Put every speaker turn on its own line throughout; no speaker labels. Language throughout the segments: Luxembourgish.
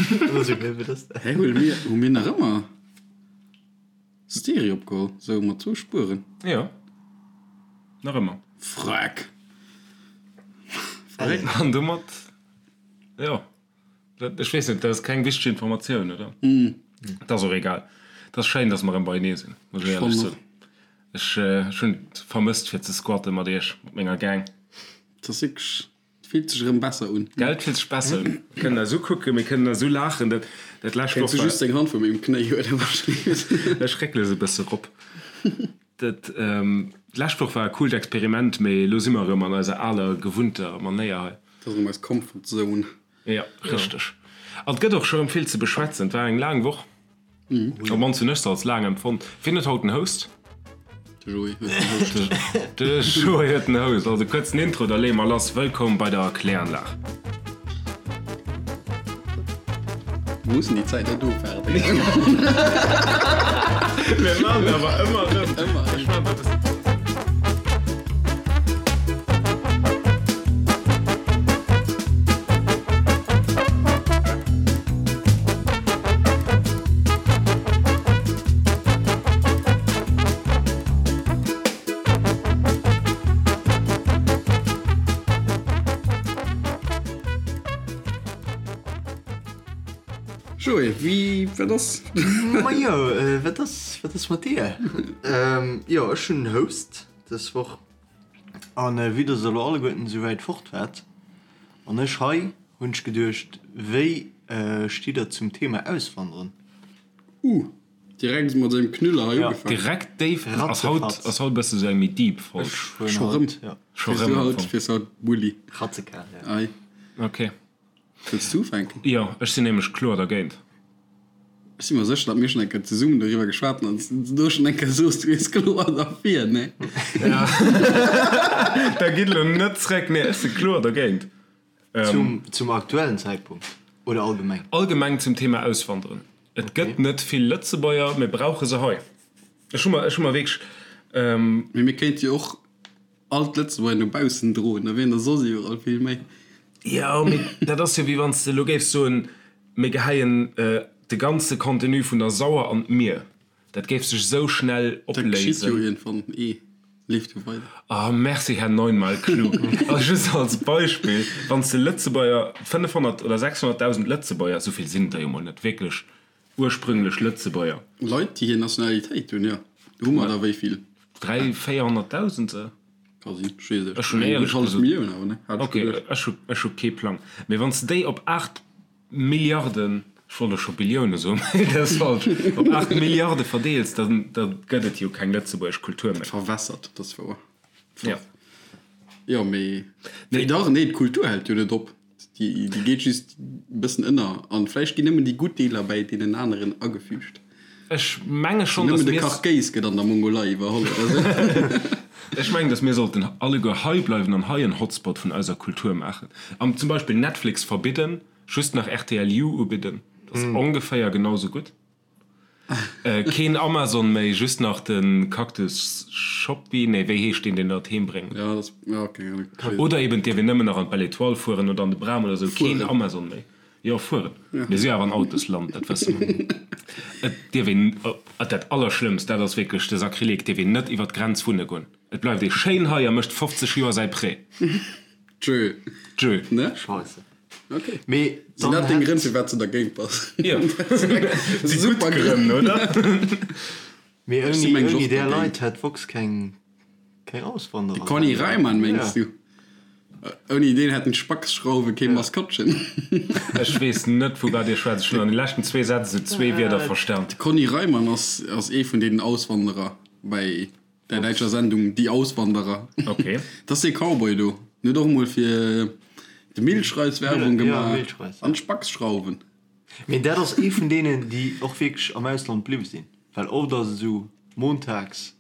Hä, hu mir, hu mir nach ëmmer Stereo opgeholl? Sou mat zwou Spueren?
Jo, nach ëmmer.
Freck!
Verréckt. An domat, jo, ech weess net, dat ass keng wichteg Informatioun, oder? Et ass och egal. Et ass schéin, dass mer erëm beienee sinn, muss ech éierlech soen. Ech hunn et vermësst, fir ze squatten mat iech, mat menger Gang.
Et ass wierklech Et fillt sech erëm besser un.
Gell, et fillt sech besser un. Mir kënnen eis ukucken, mir kënnen eis ulaachen. Dat, dat lescht
Woch war. Kéints du just deng Hand vu mengem Knéi huelen,
wahrscheinlech. Ech réckele se e bësse rop. Dat, d'lescht Woch war e coolt Experiment, mee elo si mer erëm an eiser aler, gewunnter Manéier hei.
Dat ass erëm eis Comfort Zone.
Jo, richteg. An et gëtt och scho erëm vill ze beschwätzen. Et war eng laang Woch. Op mannst hunn ech se als laang empfonnt. Wien huet haut den Host?
De Joé huet den Host.
De Joé huet den Host. Also kuerzen Intro, da leeë mer lass. Wëllkomm bei der Kläranlag.
Mir mussen déi Zäit net ofwaarden.
Mir maachen et awer ëmmer erëm. Ëmmer erëm.
Joé, wéi, wat ass?
Majo, wat ass, wat ass mat dir? Jo, ech hunn Host dës Woch. An vue dass der elo alleguerten esou wäit fort waart an ech hei, hunn ech geduecht, wéi stitt der zum Thema Auswanderen?
Uh, direkt mat sengem Knüller hei
ugefaangen. Direkt déif. Ass haut, ass haut e bësse sou eng méi deep Folg.
Scho rëm?
Scho rëm am Fong.
Fiers haut Bulli.
Ratzekal,
ja. Ei.
Ok.
Wëlls du ufänken?
Jo, ech sinn nämlech kloer dergéint.
Ech si mer sécher, datt mir schonn eng Kéier zesummen doriwwer geschwat hunn an s du do schonn eng Kéier soos, du wiers kloer derfir, nee?
Ja. Da gitt elo net zréck. Nee, ech si kloer dergéint.
Zum aktuellen Zäitpunkt oder allgemeng?
Allgemeng zum Thema Auswanderen. Et gëtt net vill Lëtzebuerger, mir brauche se hei. Ech hu mer, ech hu mer wierklech.
Mee mir kéinte jo och all d'Lëtzebuerger no baussen droen, da wieren der soss iwwerall vill méi.
Jo, mee dat ass jo wéi wann s de elo géifs soen, mir geheien de ganze Contenu vun der Sauer an d'Mier. Dat géif sech esou schnell
opléisen. Dat geschitt jo iergendwann eh. Leeft jo weider.
Ah, merci, Här Neunmal Klug. Also just als Beispill, Wann s de Lëtzebuerger, 500 oder 600.000 Lëtzebuerger, esou vill sinn et der jo mol net wierklech, ursprünglech Lëtzebuerger.
Leit, déi hir Nationalitéit hunn, jo. Hu mer der wéi vill?
Dräi, 400.000 se?
Ka sinn, ech weess et.
Ech hunn éierlech gesot. Millioun awer, ne? Hat ech Ok, geduecht. ech hu, ech hu kee Plang. Mee wann s de déi op 8 Milliarden, ech wollt elo scho Billioune soen, mee dat ass falsch, op 8 Milliarde verdeels, da da gëtt et jo keng lëtzebuergesch Kultur méi.
Dat verwässert, dat ass wouer. Ja. Jo, mee nee, dach, nee, d'Kultur hält jo net op. Déi, déi geet just e bëssen ënner an vläicht ginn nëmmen déi gutt Deeler bäi deenen aneren agefügt.
Ech menge schonn,
dass mir. Nëmmen de Kachkéis gëtt an der Mongolei iwwerholl oder sou.
Ech mengen, dass mir sollten alleguer hei bleiwen an hei en Hotspot vun eiser Kultur maachen. An zum Beispill Netflix verbidden, just nach rtl You ubidden. Dat ass ongeféier genau sou gutt. Keen Amazon méi, just nach de Cactus Shopee, nee wéi heescht deen, deen der et heem bréngt?
Ja, dat ass, ja, keng
Ahnung. Oder eben, et dierf een nëmmen nach an d'Belle Etoile fueren oder an de Bram oder sou. Keen Amazon méi. Jo, fueren. Mir si jo awer en Autosland, dat wësse mer. Et dierf een, dat Allerschlëmmst, dat ass wierklech de Sakrileg, et dierf een net iwwer d'Grenz wunne goen. Et bleift ee schéin hei a mécht 50 Joer säi Prêt.
Tschö.
Tschö.
Ne?
Scheisse.
Ok.
Mee
Sinn
dann
dat deng
hätt.
Grënn, firwat s de dergéint bass?
Jo. Si gutt Grënn, oder?
Mee
Ech si
ouni,
mengen
ouni
och
där
dergéint.
Leit hätt Vox keng. Keng Auswanderer.
De Conny Reimann mengs du? Ouni deen hätten d'Spackschrauwe kee Maskottchen.
Ech weess net vu wat dir schwätzt. Ech hunn an de leschten zwee Sätz esou zwee Wierder verstan.
De Conny Reimann ass ass ee vun deenen Auswanderer bei der däitscher Sendung Die Auswanderer.
Ok.
Dat ass dee Cowboy do. En huet och emol fir de Milchreis Werbung gemaach an d'Spackschrauwen.
Mee dat ass ee vun deenen déi och wierklech am Ausland bliwwe sinn. Well oft ass et esou montags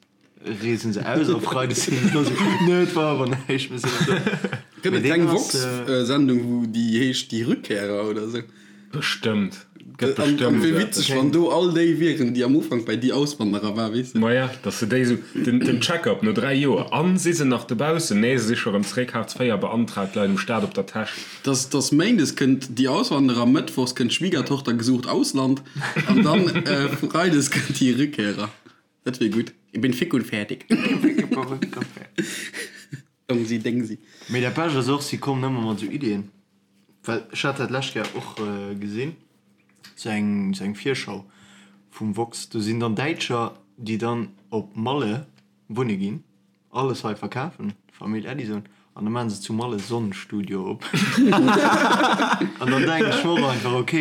Reesen se aus a Freides sinn se do sou, Nö, et war awer näischt, mir sinn net do.
Gëtt et keng Vox-Sendung, wou déi heescht Die Rückkehrer oder sou?
Bestëmmt. Gëtt
An
bestëmmt
wéi
esou
witzeg,
eppes.
wann do all déi wieren, déi am Ufank bei Die Auswanderer war, weess de.
Maja, dass se déi esou, den, den Check-up no 3 Joer, an si se nach dobaussen? Nee, se si scho rëm zréck, Hartz IV beantragt, leit um Staat op der Täsch.
Dass, dass Méindes kënnt Die Auswanderer, Mëttwochs kënnt Schwiegertochter gesucht Ausland an dann Freides kënnt Die Rückkehrer. Dat wier gutt. Ich bin fick und fertig. Dongsi Dengsi.
Mee dat Bescht ass och, si kommen ëmmer mat esou Iddien, well ech hat dat d'lescht Kéier och gesinn, sou eng sou eng Virschau vum Vox, do sinn dann Däitscher, déi dann op Malle wunne ginn, alles hei verkafen, Famill Edison, an da maachen se zu Malle Sonnenstudio op. An dann denken ech mer och einfach, ok,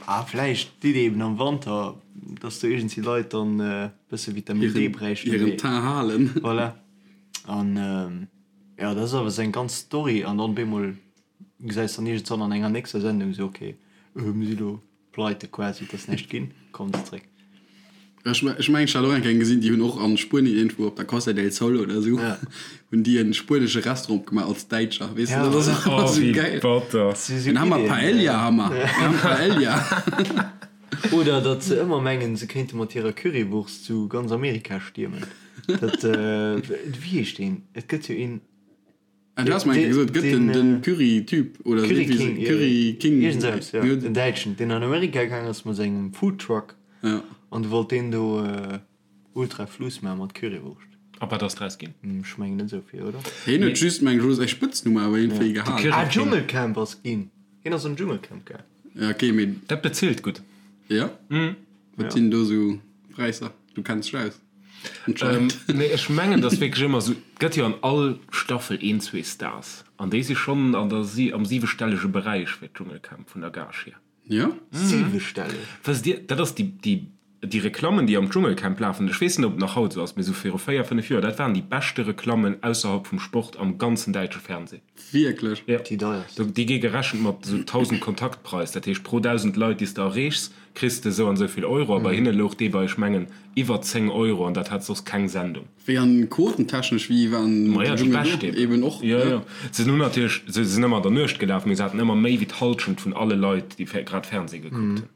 ah vläicht d'Iddi eben am Wanter, dass do iergendwéi Leit dann e bësse Vitamin D bräichten,
Hiren Teint halen.
Voilà. An jo, dat ass awer seng ganz Story an dann bemol gesäis dann iergendwann an enger nächster Sendung sou, ok, mir si lo pleite quasi, et ass näischt ginn, kommen se zréck.
Ech ech mengen ech hat och eng Kéier eng gesinn, déi hunn och an Spuenien iergendwou op der Costa del Sol oder sou hunn déi en spuenesche Restaurant opgemaach als Däitscher, weess de, dat ass och ëmmer
Oh,
sou
wéi
geil.
batter.
Dann hu mer Paella hu mer, mir hu Paella.
Oder datt se ëmmer mengen, se kéinte mat hirer Currywurst zu ganz Amerika stiermen. Dat, wéi heescht deen? Et gëtt jo een.
Ah, du has mer eng Kéier gesot, et gëtt den, den Curry-Typ oder
Curry King, jo.
Curry King.
Iergend esou eppes, jo. En Däitschen, deen an Amerika gaang ass mat sengem Foodtruck.
Ja.
An du wollt deen do ultra Fluss maache mat Currywurscht.
A wat ass draus ginn?
Ech mengen net esou vill, oder?
Hien huet just, meng ech, elo säi Spëtznumm awer iergendwéi gehalen.
Ah, Dschungelcamp ass ginn. Hien ass am Dschungelcamp gaang.
Ja, okay, mee.
Dat bezilt gutt.
Ja? Wat sinn do sou Präisser? Du kenns dech aus. Anscheinend.
Nee, ech mengen, dass wierklech ëmmer sou, et gëtt jo an all Staffel een, zwee Stars an déi si schonn an der si am siwestellege Beräich fir d'Dschungelcamp vun der Gage hier.
Ja?
Siwestelleg?
Wësst Dir, dat ass déi, déi, déi Reklammen, déi am Dschungelcamp lafen, ech weess net, ob et nach haut esou ass, mee sou viru véier, fënnef Joer, dat waren déi beschte Reklammen ausserhalb vum Sport am ganzen däitsche Fernseh.
Wierklech?
Ja.
Déi deierst.
Déi gi gerechent mat esou 1.000 Kontaktpreis, dat heescht pro 1.000 Leit, déi s de erreechs, kriss de esou an esou vill Euro. A bei hinne louch dee bei, ech mengen, iwwer 10 Euro an dat hat soss keng Sendung.
Wéi an quotentechnesch, wéi waren
Maja, déi bescht eben.
Eben och,
Jo, jo. Se hunn natierlech, se sinn ëmmer an der Nuecht gelaf, mee se haten ëmmer méi wéi d'Hallschent vun alle Leit, déi grad Fernseh gekuckt hunn.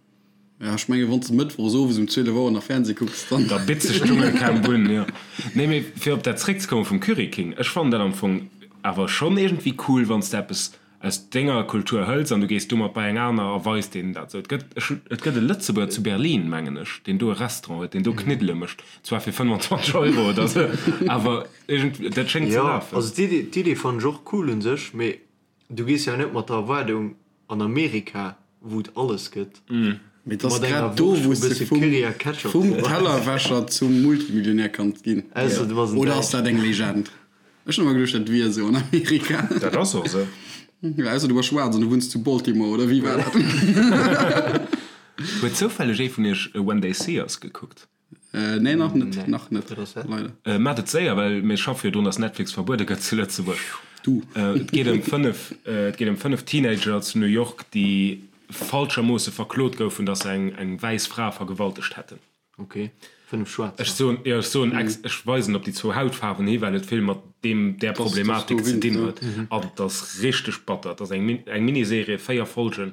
Ja, ech mengen, wann s de mëttwochs owes um 12 Auer nach Fernseh kucks, dann.
Da bitt sech d'Dschungelcamp un, jo. Nee, mee fir op dat zréckzekommen vum Curry King, ech fannen dat am Fong awer schonn iergendwéi cool, wann s de eppes aus denger Kultur hëls an du gees domat bei eng aner a weis deenen dat esou. Et gëtt, ech hunn, et gëtt e Lëtzebuerger zu Berlin, mengen ech, deen do e Restaurant huet, deen do Kniddele mécht, zwar fir 25 Euro oder esou, awer iergendwéi, dat schéngt ze
Jo,
lafen.
also d'Iddi, d'Iddi fannen ech och cool un sech, mee du gees jo net mat der Erwaardung An Amerika, wou et alles gëtt.
Mee et ass grad do, wou s de vum Tellerwäscher zum Multimillionär kanns ginn. Oder ass dat eng Legend? Ech hunn ëmmer geduecht, dat wier esou an Amerika.
Dat ass och esou.
Jo, ausser du bass schwaarz an du wunns zu Baltimore, oder wéi war dat?
Huet zoufälleg ee vun iech When They See Us gekuckt?
Nee, nach net, nach net, leider.
Maacht et séier, well mir schaffe jo drun, dass Netflix verbuede gëtt zu Lëtzebuerg.
Du.
Et geet ëm 5, et geet ëm 5 Teenager zu New York, déi falschermoosse verklot goufen, dass se eng, eng wäiss Fra vergewaltegt hätten.
Ok, 5 Schwaarzer.
Ech soen, jo, ech soen ex, ech weisen op déi zwou Hautfaarwen hi, well et vill mat deem, där Problematik ze dinn huet. An et ass richteg batter. Et ass eng, eng Miniserie, 4 Folgen.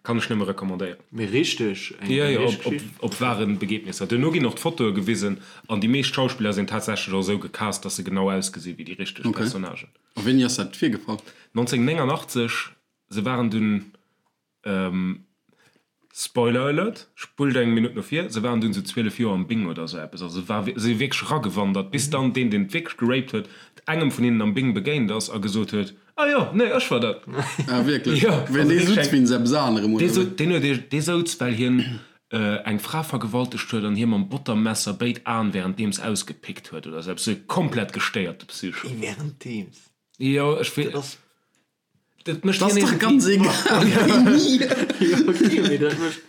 Kann ech nëmme recommandéieren.
Mee richteg
eng Jo, jo, op, op, op wahren Begebnisser. Duerno ginn och d'Fotoe gewisen an déi meescht Schauspiller sinn tatsächlech och esou gecast, dass se genau ausgesi wéi déi richteg
Okay.
Personnagen.
A wéini ass dat virgefall?
1989, se waren dunn, Spoiler Alert, spullt eng Minutt no vir, se waren dunn esou 12 Joer am Bing oder esou eppes, also war, se si wierklech eragewandert, bis dann deen, deen wierklech geraped huet, engem vun hinnen am Bing begéint ass a gesot huet, Ah jo, nee, ech war dat.
Ah wierklech?
Jo.
Well dee sutz wéinst eppes anerem, oder wéi?
Deen huet, dee souz, well hien eng Fra vergewaltegt huet an hir mam Bottermesser béid Aen währenddeems ausgepickt huet oder esou eppes. Esou e komplett gestéierte Psycho.
Währenddeems?
Jo, ech wee.
Dat ass.
Dat mécht
Dat ass
hien
dach ganz
iergendwéi.
egal wéini.
Jo, okay, mee dat mécht.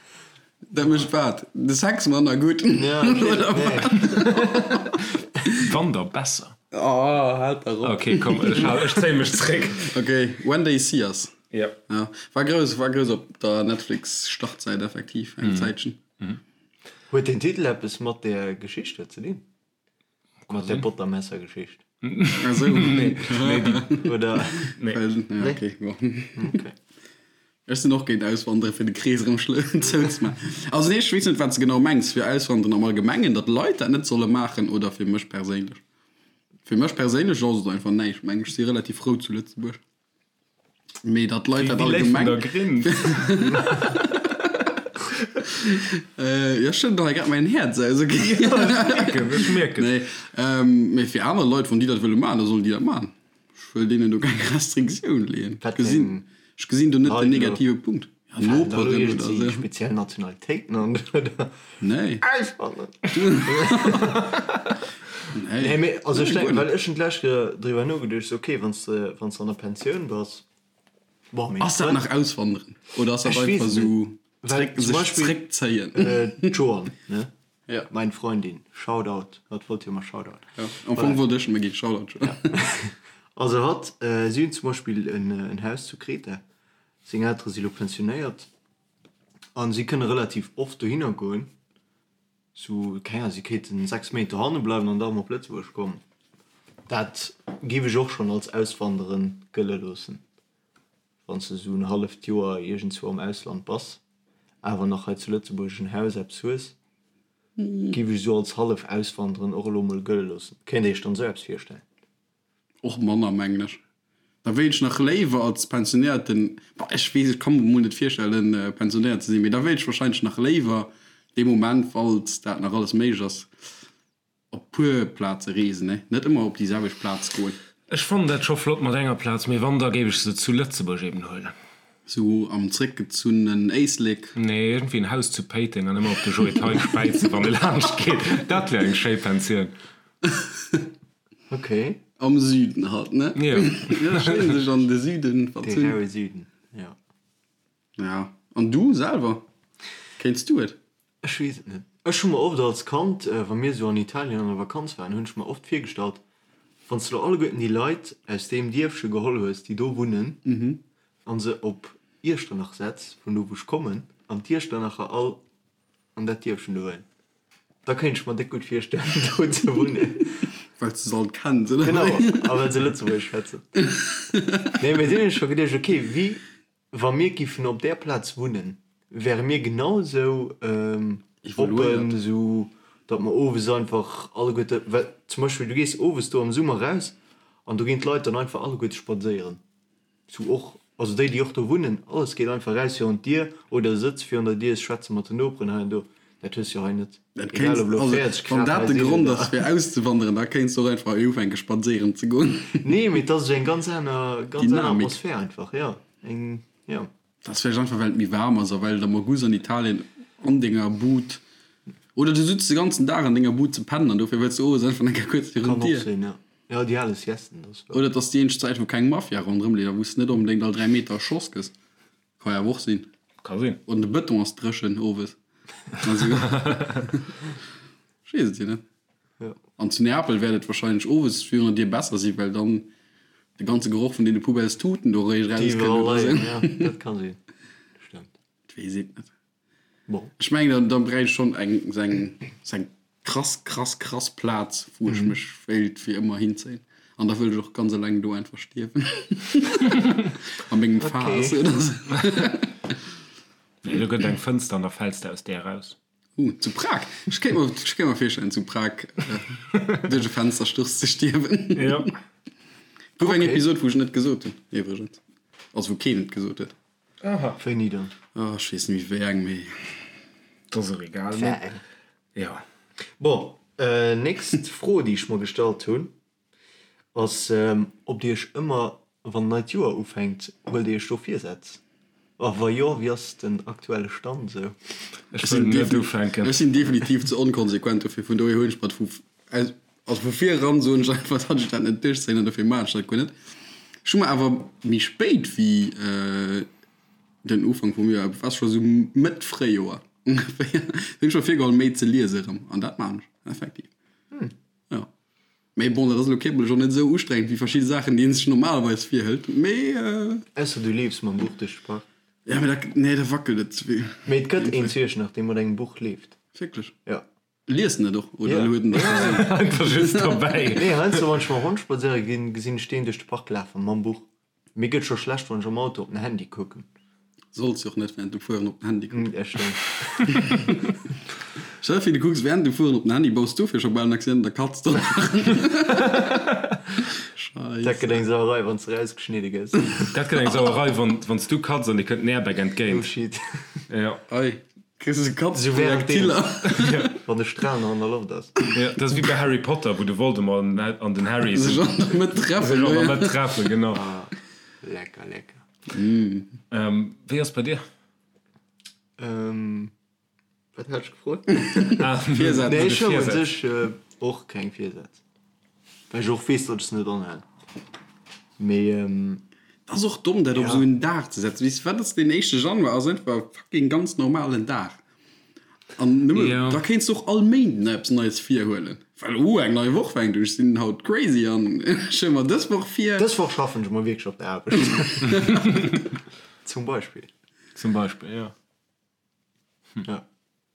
Dat mécht wat? De Sex manner gutt?
Ja, okay,
Oder
nee.
wat?
Wann da besser.
Oh, haalt dach op.
Okay, komm, ech hal, ech zéie mech zréck.
Okay, When They See Us.
Ja.
Ja, war grouss, war grouss op der Netflix-Startsäit effektiv eng Zäitchen.
Huet den Titel eppes mat där Geschicht do ze dinn? Mat där Bottermesser-Geschicht?
Ah sou.
Nee, nee, déi.
Oder?
Nee.
Well, ja, okay, bon.
Okay.
Ech sinn och géint Auswandere fir de Krees erëm zouzemaachen. Also nee, ech weess net wat s de genau mengs, fir Auswanderen am Allgemengen, datt Leit dat net solle maachen oder fir mech perséinlech? Fir mech perséinlech ass et einfach näischt, meng ech. Ech si relativ frou zu Lëtzebuerg. Mee datt Leit dat allgemeng. Jo, ech schëdden hei grad mäin Häerz aus, ok?
Ech mierken.
Nee, mee fir aner Leit, wann déi dat wëlle maachen, da sollen déi dat maachen. Ech wëll deenen do keng Restriktioun leeën. Ech gesinn, ech gesinn do net den negative Punkt. Ja, Noperen oder esou.
Speziell Nationalitéiten an oder?
Nee.
Auswandern. Nee. Nee, mee also ech denken, well ech hunn d'lescht Kéier driwwer nogeduecht, sou okay, wann s de, wann s de an der Pensioun bass,
bon, meng Ass dat nach auswandern oder ass dat einfach sou
zréck,
sech zréckzéien?
D'Joanne, ne?
Ja.
Mein Freundin, Shoutout, hatt wollt jo emmer Shoutout.
Ja, am Fong wollt ech emmer ginn, Shoutout.
Ja. Also hatt, si hunn zum Beispill en Haus zu Kreta, seng Eltere si lo pensionéiert an si kënne relativ oft dohinner goen, sou, keng Ahnung, si kéinten 6 Méint dohanne bleiwen an da erëm op Lëtzebuerg kommen. Dat géif ech och schonn als Auswanderen gëlle loossen. Wann s de esou en halleft Joer iergendzwou am Ausland bass, awer nach hei zu Lëtzebuerg en Haus, eppes hues, géif ech esou als hallef Auswanderen och elo mol gëlle loossen. Kéint Dir Iech dann esou eppes virstellen?
Och manner, mengen ech. Da wéilt ech nach léiwer als Pensionéierten, bah, ech weess, ech ka mer mol net virstellen, pensionéiert ze sinn, mee da wéilt ech wahrscheinlech nach léiwer dee Moment, falls dat nach alles méiglech ass, Op puer Plaze reesen, ne? Net ëmmer op déi selwecht Plaz goen.
Ech fannen dat scho flott mat enger Plaz, mee wann da géif ech se zu Lëtzebuerg eben huelen.
Sou am zréckgezunnenen Éislek.
Nee, iergendwéi en Haus zu Péiteng an ëmmer op de Joe Thein späizen wann e laanscht geet. Dat wär eng schéi Pensioun.
Ok.
Am Süden halt, ne?
Jo.
Jo, schéin sech an de Süden
De
verzunn.
raue Süden, jo.
Ja, an du selwer? Kéints du et?
Ech weess et net. Ech hu mer oft als Kand, wa mir esou an Italien an der Vakanz waren, hunn ech mer oft virgestallt, wann s de lo alleguerten déi Leit aus deem Dierfche geholl hues, déi do wunnen, a se op Iechternach setz, vun do wou ech kommen, an d'Iechternacher all an dat Dierfchen do huelen, da kéint ech mer déck gutt virstellen, do ze wunnen.
Well s de se all kenns, oder
Genau,
wéi?
a well se Lëtzebuergesch schwätzen. Nee, mee dunn hunn ech scho geduecht, okay, wéi Wa mir giffen op där Plaz wunnen, wäre mir genau esou oppen, esou datt mer owes einfach alleguerte, well zum Beispill du gees owes do am Summer raus an do ginn d'Leit dann einfach alleguerte spadséieren, esou och, also déi déi och do wunnen, alles geet einfach raus virun d'Dier oder sëtzt virun der Dier, schwätze mat den Noperen hei an do. Dat hues jo hei net.
Dat
Egal
kéinst,
ob elo
also
40
wann
Grad
dat
hei
de
sinn
Grond
oder.
ass fir auszewanderen, da kéinst du och einfach hei ufänke spadséieren ze goen.
Nee, mee et ass esou eng ganz aner, ganz aner
Dynamik.
Atmosphär einfach, jo. Eng, jo.
Dat ass vläicht einfach well et méi waarm ass a well et am August an Italien an denger Bud, oder du sutz de ganzen Dag an denger Bud ze pennen an dofir wëlls du owes einfach eng Kéier kuerz virun
Kann och
d'Dier.
sinn, jo. Jo, déi ale Siesten, dat ass wouer.
Oder et ass déi eenzeg Zäit wou keng Mafia ronderëm leeft a wou s de net onbedéngt all 3 Meter erschoss gëss. Ka jo awer och sinn.
Ka sinn.
Oder de Bëtong ass dréchen owes. Also, ech weess et jo net.
Ja.
An zu Neapel wäert et wahrscheinlech owes virun der Dier besser sinn, well dann de ganze Geroch vun deene Poubellestuten do eréischt
Déi
erauskënnt
iwwerall
oder
leien,
sou.
ja, dat ka sinn. Stëmmt.
Et weess een et net.
Bon.
Ech mengen, dann, dann bräicht ech schonn eng, sou eng, sou eng krass, krass, krass Plaz, wou ech mech wéilt fir ëmmer hinzéien. An da wëll ech och ganz eleng do einfach stierwen. A mengem Faass
Okay.
oder sou.
Nee, do gëtt eng Fënster an da fäls de aus där eraus.
Uh, zu Prag. Ech kéint mer, ech kéint mer virstellen, zu Prag duerch e Fenstersturz ze stierwen.
Jo.
Gouf eng
Okay.
Episod, wou ech net gesot hunn, iwwregens. Also wou keen et gesot huet.
Aha.
Wéini dann?
Oh, ech weess net méi wéi eng, mee.
Dat ass och egal,
War
mee
eng.
jo.
Bon, nächst Fro, déi ech mer gestallt hunn, ass, ob Dir Iech ëmmer, wann neit Joer ufänkt, huelt Dir Iech do Virsätz? A wa jo, wéi ass den aktuelle Stand esou?
Ech wëll net ufänken.
Ech sinn definitiv ze onkonsequent dofir, vun dohier hunn ech mer vu, also vu vir eran soen ech einfach, datt ech dat net duerchzéien an dofir maachen ech dat guer net. Ech hu mer awer méi spéit wéi den Ufank vum Joer, et war scho sou Mëtt Fréijoer ongeféier, hunn ech mer virgeholl méi ze liese erëm an dat maachen ech effektiv. Jo. Mee bon, dat ass elo kierperlech och net esou ustrengend wéi verschidde Saachen, déi een sech normalerweis virhëlt. Mee.
Ausser du leefs mam Buch duerch de Park.
Ja, mee da, nee, da wackelt et ze vill.
Mee et gëtt een zu Iechternach, dee mat engem Buch leeft.
Wierklech?
Jo.
Liest en et och, oder
Ja.
huet en dat just esou?
Einfach just dobäi.
Nee, heiansdo, wann ech mam Hond spadséiere ginn, gesinn ech deen duerch de Park lafen mam Buch. Mir gëtt scho schlecht, wann ech am Auto op den Handy kucken.
Solls jo och net während dem Fueren op den Handy kucken. Ja, stimmt. Stell dir vir, du kucks während dem Fueren op den Handy, baus dofir scho bal en Accident, da katz de nach.
Scheisse. Dat gëtt eng Sauerei, wann s de rausgeschnidde gëss.
Dat gëtt eng Sauerei, wann wann s du katz an dir kënnt den Airbag entgéint.
Oh shit.
Ja.
Ei, kriss de Katzprojektiller.
Wann de Stral nach an der Loft ass.
Ja, dat ass wéi bei Harry Potter, wou de Voldemort an den Harry
sech an der Mëtt treffen.
Sech an der Mëtt treffen, genau.
Ah, lecker, lecker.
Wéi ass bei dir?
Wat hat ech gefrot? Virsätz. Nee, ech hunn u sech och keng Virsätz, well ech och weess, datt ech se net anhalen. Mee.
Dat ass och domm, dat op esou en Dag ze setzen. Weess de wat, ass deen éischte Januar ass einfach e fucking ganz normalen Dag. An nëmme,
Ja.
da kéints de och all Méinden eppes Neies virhuelen. Well, oh, eng nei Woch fänkt un, ech sinn haut crazy an ech huele mer dës Woch vir.
Dës Woch schaffen ech mol wierklech op der Aarbecht. Zum Beispill.
Zum Beispill, ja.
Ja.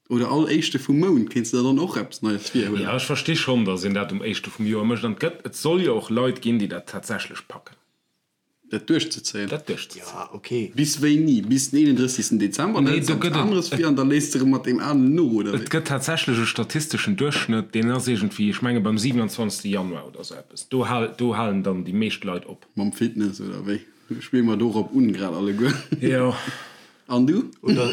Oder all éischte vum Mount kéints de der dann och eppes Neies virhuelen.
Ja, ech versti schonn, datt een dat um éischte vum Joer mécht. An et gëtt, et soll jo och Leit ginn, déi dat tatsächlech packen.
Dat duerchzezéien.
Dat duerchzezéien.
Ja, ok.
Bis wéini? Bis den 31. Dezember? Dann
Nee,
hëls de
do
eppes
gëtt et,
aneres vir an da léisst de erëm mat deem alen no, oder
et
wéi?
gëtt tatsächlech e statisteschen Duerchschnëtt, deen ass iergendwéi, ech menge beim 27. Januar oder sou eppes. Do hal, do halen dann déi meescht Leit op.
Mam Fitness, oder wéi? Spille mer dorop un grad alleguer.
Jo.
An du?
Oder.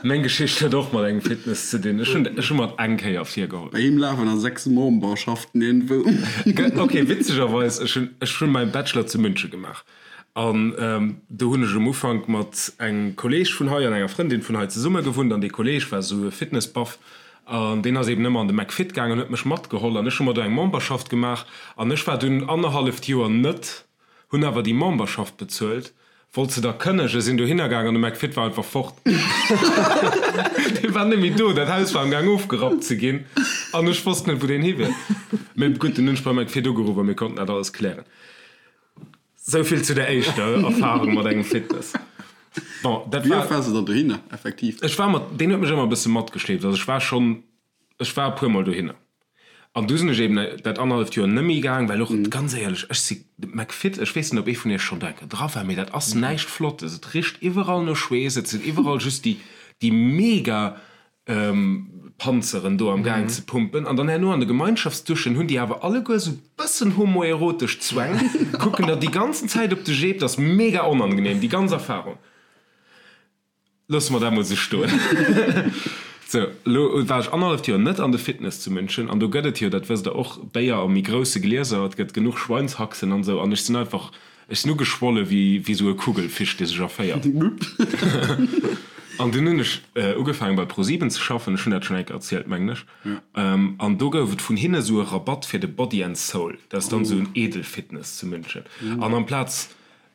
Meng Geschicht huet och mat engem Fitness ze dinn. Ech hunn, ech hu mer et eng Kéier virgeholl.
Bei him lafen a 6 Memberschaften iergendwou.
Ok, witzegerweis, ech hunn, ech hunn mäin Bachelor zu München gemaach. An do hunn ech um Ufank mat engem Kolleeg vun hei an enger Frëndin vun hei zesumme gewunnt. An dee Kolleeg war esou e Fitnessbuff. An deen ass eben ëmmer an de McFit gaangen an huet mech matgeholl. An ech hu mer do eng Memberschaft gemaach. An ech war dunn annerhalleft Joer net. Hunn awer déi Memberschaft bezuelt, wollt se da kënnegen, sinn dohinner gaang an de McFit war einfach fort. Dee war net méi do, dat Haus war am gaang ofgerappt ze ginn an ech wosst net wou deen hi wier. Mee gutt, dunn hunn ech beim McFit ugeruff a mir konnten dat alles klären. Sou vill zu der éischter Erfarung mat engem Fitness. Bon, dat
Wéi oft
war.
waars de dann dohinner effektiv?
Ech war mat, deen huet mech ëmmer e bësse matgeschleeft, also ech war schonn Ech war e puer mol dohinner an du sinn ech eben dat annerhalleft Joer nëmmi gaang, well och, ganz éierlech, ech si McFit, ech weess net, ob ee vun iech schonn do eng Kéier dra war, mee dat ass näischt Flottes, et richt iwwerall no Schweess, et sinn iwwerall just déi, déi mega Panzeren do am gaang ze pumpen an dann herno an de Gemeinschaftsduschen hunn déi awer alleguer esou bëssen homoerotesch Zwäng, kucken der déi ganzen Zäit op de Jeep, dat ass mega onangenehm, déi ganz Erfahrung. Loosse mer dat mol sou stoen. Sou, elo war ech annerhalleft Joer net an de Fitness zu München an do gëtt et jo, dat wësst der och, Béier a méi grousse Glieser, et gëtt genuch Schweinshaxen an esou an ech sinn einfach, ech sinn ugeschwolle wéi wéi sou e Kugelfisch, dee sech erféiert. An dunn hunn ech ugefaangen bei ProSieben ze schaffen, ech hunn dat schonn eng Kéier erzielt, mengen ech, an do gouf et vun hinne sou e Rabatt fir de Body and Soul, dat ass dann sou en Edelfitness zu München an amplaz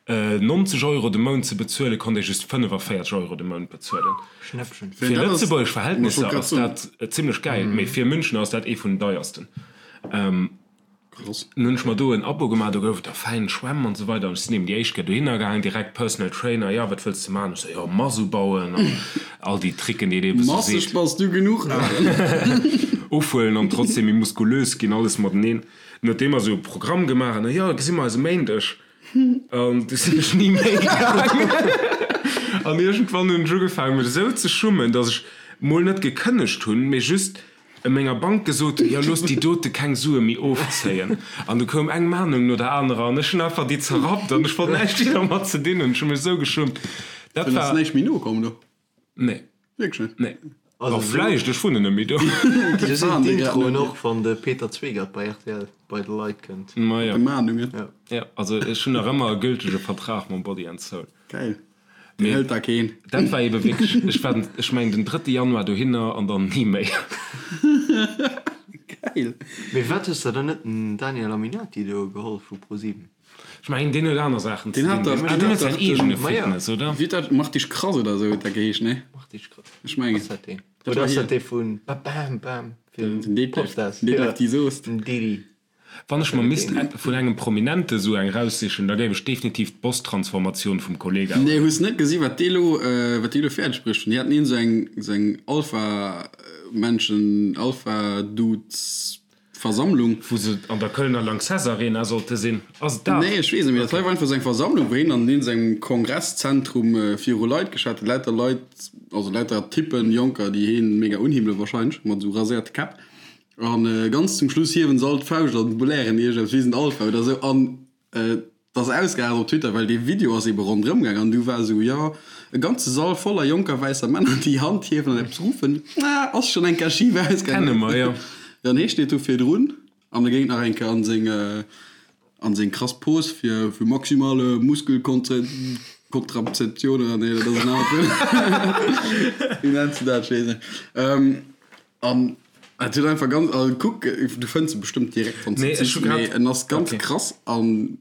90 Euro de Mount ze bezuelen, konnt ee just 45 Euro de Mount bezuelen.
Schnäppchen.
Fir lëtzebuergesch Verhältnisser ass dat zimlech gäil, mee fir München ass dat ee vun den deiersten.
Krass.
Nun hunn ech mer do en Abo gemaach, do gouf et da fäin Schwämm an esou weider an ech sinn eben déi éischt Kéier dohinner gaangen, direkt Personal Trainer, jo wat wëlls de maachen? Ech sou, jo Mass ubauen an all déi Tricken déi een eben esou
Masseg
seet.
bass du genuch, Aaron.
Ofhuelen an trotzdem méi muskulös ginn, alles mateneen. Nodeem mer esou e Programm gemaach hunn, jo gesi mer eis e Méindeg. An du sinn ech ni méi gaangen. An iergendwann hunn ech ugefaangen, mech esou ze schummen, datt ech mol net gekënnegt hunn, mee just menger Bank gesot hunn, jo looss déi dote keng Sue méi ofzéien. An du koum eng Mahnung no der anerer an ech hunn einfach déi zerrappt an ech wollt näischt méi dermat ze dinn hunn. Ech hu mech esou geschummt. Dat
Dann ass
war.
näischt méi nokomm do?
Nee.
Wierklech net?
Nee.
Also
Oh, vläicht, ech wunnen net méi do.
Sou sinn d'Introen och, wann de Peter Zwegert bei rtl bei de Leit kënnt.
Ma jo.
De Mahnungen.
Ja.
Ja, also ech hunn nach ëmmer e gültege Vertrag mam Body and Soul.
Geil. Deen
Mee
hëlt da keen.
dat war ebe wierklech, ech war, ech mengen den drëtte Januar dohinner an dann ni méi.
Geil.
Mee wat hues de dann net den Daniel Aminati do geholl vu ProSieben?
Ech mengen deen huet aner Saachen ze
Deen hat
dinn.
dach,
Ah,
deen
deen
hat
huet säin
dach
eegene
den,
Ma ja.
Fitness, oder?
wéi huet dat, Mach dich krass oder esou huet dat geheescht, nee?
Mach dich krass.
Ech mengen.
Ass dat deen?
Dat
Oder
war
ass dat
hien.
dee vun Ba Bam Bam
Den
fir
Detlef,
Popstars?
den Detlef
Ja,
D! Soost.
den Didi.
Wann ech mer misst vun engem Prominente sou eng raussichen, da géif ech definitiv d'Boss-Transformatioun vum Kollega
Nee,
huelen.
hues net gesi wat déi elo, wat déi elo fäerdeg bruecht hunn? Déi haten een esou eng, esou eng Alpha-Menschen, Alpha-Dudes. Versammlung.
Wou se an der Kölner Lanxess Arena sollte sinn. Ass et dat?
Nee, ech weess net, mee dat hei war einfach esou eng Versammlung, wou hien an iergendengem Kongresszentrum viru Leit geschwat huet. Lauter Leit, also lauter Typpen, Jonker, déi hien mega unhimmele wahrscheinlech, mat esou raséierte Käpp. An ganz zum Schluss hiewen se all d'Fauscht an blären iergendepps, wir sind Alpha oder esou. An Et ass ausgeaart op Twitter, well dee Video ass ebe ronderëm gaang an du war esou, jo, e ganze Sall voller jonker wäisser Männer, déi Hand hiewen an eppes ruffen, ah, ass schonn eng Kéier schif ausgaangen.
Kenne mer, jo.
Dann hee steet do virdrun an e géing nach eng Kéier an seng, an seng krass Pose fir, fir maximale Muskelkontrazeption oder nee, dat ass en anert Wuert, wéi nenns de dat, ech weess net. An et huet einfach ganz, also kuck, du fënns e bestëmmt direkt wann s de
Nee, ech hu
sichs,
grad,
mee en ass ganz
okay.
krass an